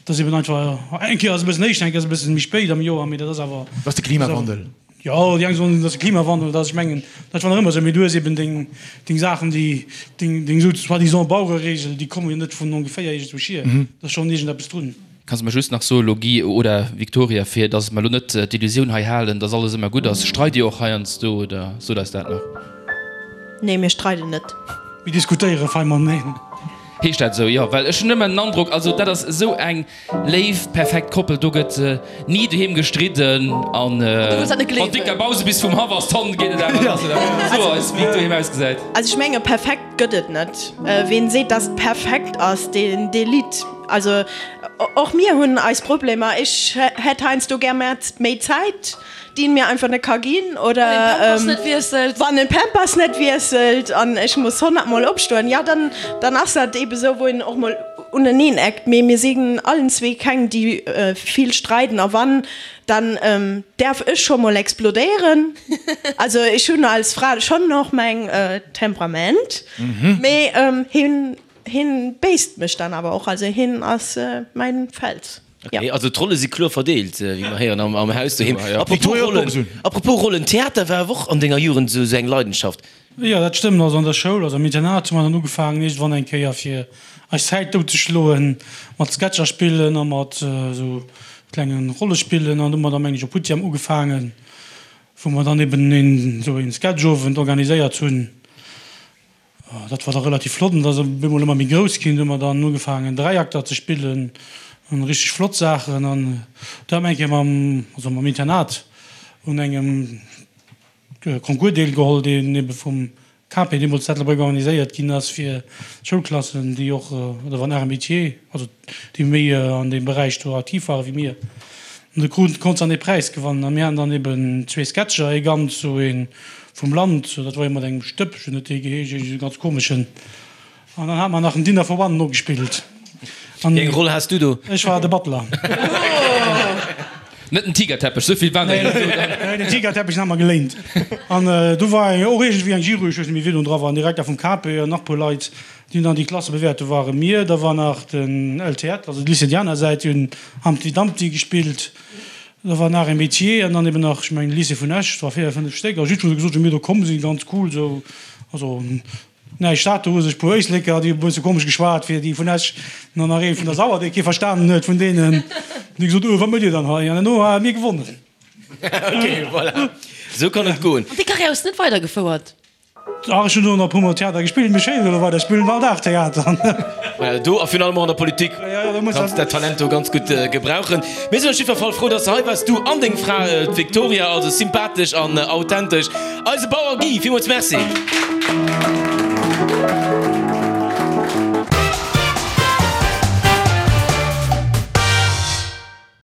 Et ass eben einfach, eng Kéier ass e bëssen éischter, eng Kéier ass e bëssen méi spéit am Joer, mee dat ass awer. Dat ass de Klimawandel. Jo, déi eng soen, et ass de Klimawandel, dat ass, ech mengen, dat war nach ëmmer esou, mee du hues eben deng, deng Saachen, déi, deng, deng sou soi-disant Bauereregel, déi komme jo net vun ongeféier iergendwou hier, do ass schonn iergendeppes drun. Kanns de mer just nach soen elo, Guy oder Victoria, fir dass mer elo net d'Illusioun hei halen, dass alles ëmmer gutt ass, streit Dir och heiansdo oder sot eis dat nach? Nee, mir streiden net. Mir diskutéiere fei mateneen. Heescht dat esou? Jo, well ech hunn ëmmer den Androck, also dat ass esou eng léif, perfekt Koppel, do gëtt ni doheem gestridden an wann d'Dicka Bause bis vum Haff ass, dann geet et awer lass, oder? So eis, wéi et doheem ausgesäit. Also ech menge perfekt gëtt et net. Ween seet, dass et perfekt ass, deen, dee litt. Also och mir hunn eis Problemer. Ech hätt heiansdo gär méi Zäit, déi en mir einfach net ka ginn, oder wann en d'Pampers net wiesselt an ech muss 100 mol opstoen, jo dann dann ass dat eebe sou, wou een och mol uneneen eckt. Mee mir sinn allen zwee keng, déi vill streiden a wann, dann däerf ech scho mol explodéieren. Also ech hunn als Fra schonn och mäin Temperament, mee hien Hien béisst mech dann awer och, also hien ass mäin Fels. Ok, also d'Rolle si kloer verdeelt, wéi mer héieren am Haus doheem. Apropos Rollen, apropos Rollen, Theater war awer och an denger Jugend esou eng Leidenschaft. Jo, dat stëmmt. Also an der Schoul, also am Internat hu mer dann ugefaangen iergendwann eng Kéier fir eis Zäit dout ze schloen, mat Sketcher spillen a mat esou klenge Rollespillen. An du hu mer da meng ech op Huttjam ugefaangen, wou mer dann eben een esou een Sketchowend organiséiert hunn. Dat war da relativ flott an et ass op eemol ëmmer méi grouss ginn. Du hu mer dann ugefaangen Dräiakter ze spillen an richteg flott Saachen. An du hat mer eng Kéier mam, also mam Internat un engem Concours deelgeholl, deen ebe vum KP deemools zu Ettelbréck organiséiert ginn ass fir Schoulklassen, déi och, oder wann Arts et Métiers, also déi méi an deem Beräich do aktiv ware wéi mir. An do krut, konnt se dann ee Präis gewannen. A mir haten dann eben zwee Sketcher, ee ganz sou ee vum Land, dat war ee mat engem Stëppchen, huet dee geheescht, iergend esou ganz komeschen. An dann hate mer nach en Dinner for One nogespillt. An Wéi eng Roll has du do? Ech war de Butler. Net den Tigerteppech, sou vill waren der jo net do dann. Nee, den Tigerteppech, den hat mer geléint. An do war och iergendwéi eng Jury, ech weess net méi, wien do dra war, en Direkter vum KP an nach e puer Leit. Déi hunn dann déi Klasse bewäert. Do ware mir, da war nach den LTEtt, also d'Lycée déi aner Säit, déi hunn Humpty Dumpty gespillt. Da war nach e Métier an dann eben nach, ech mengen, de Lycée vun Esch, et war 4, 5 Stéck. A jiddwereen huet gesot, wéi mir do komm sinn, ganz cool esou. Also näischt dat, do hu sech e puer Éisleker, déi hu e bësse komesch geschwat fir déi vun Esch, an dann nach ee vun der Sauer, dee kee verstanen huet vun deenen, déi gesot, Oh, wat mëtt Dir dann hei? An herno hu mir gewonnen. Ok, voilà, esou kann et goen. An déi Karriär hues de net weidergefouert? Ach, ech hunn do nach e puer Mol Theater gespillt, mee schéin elo weider, ech spillen all Dag Theater. Voilà, do a virun allem och an der Politik kanns dat Talent do ganz gutt gebrauchen. Mir sinn op jiddwer Fall frou, dass de hei waars, du an deng Fra, d'Victoria, also sympathesch an authentesch. Eise Bauer Guy, villmools Merci.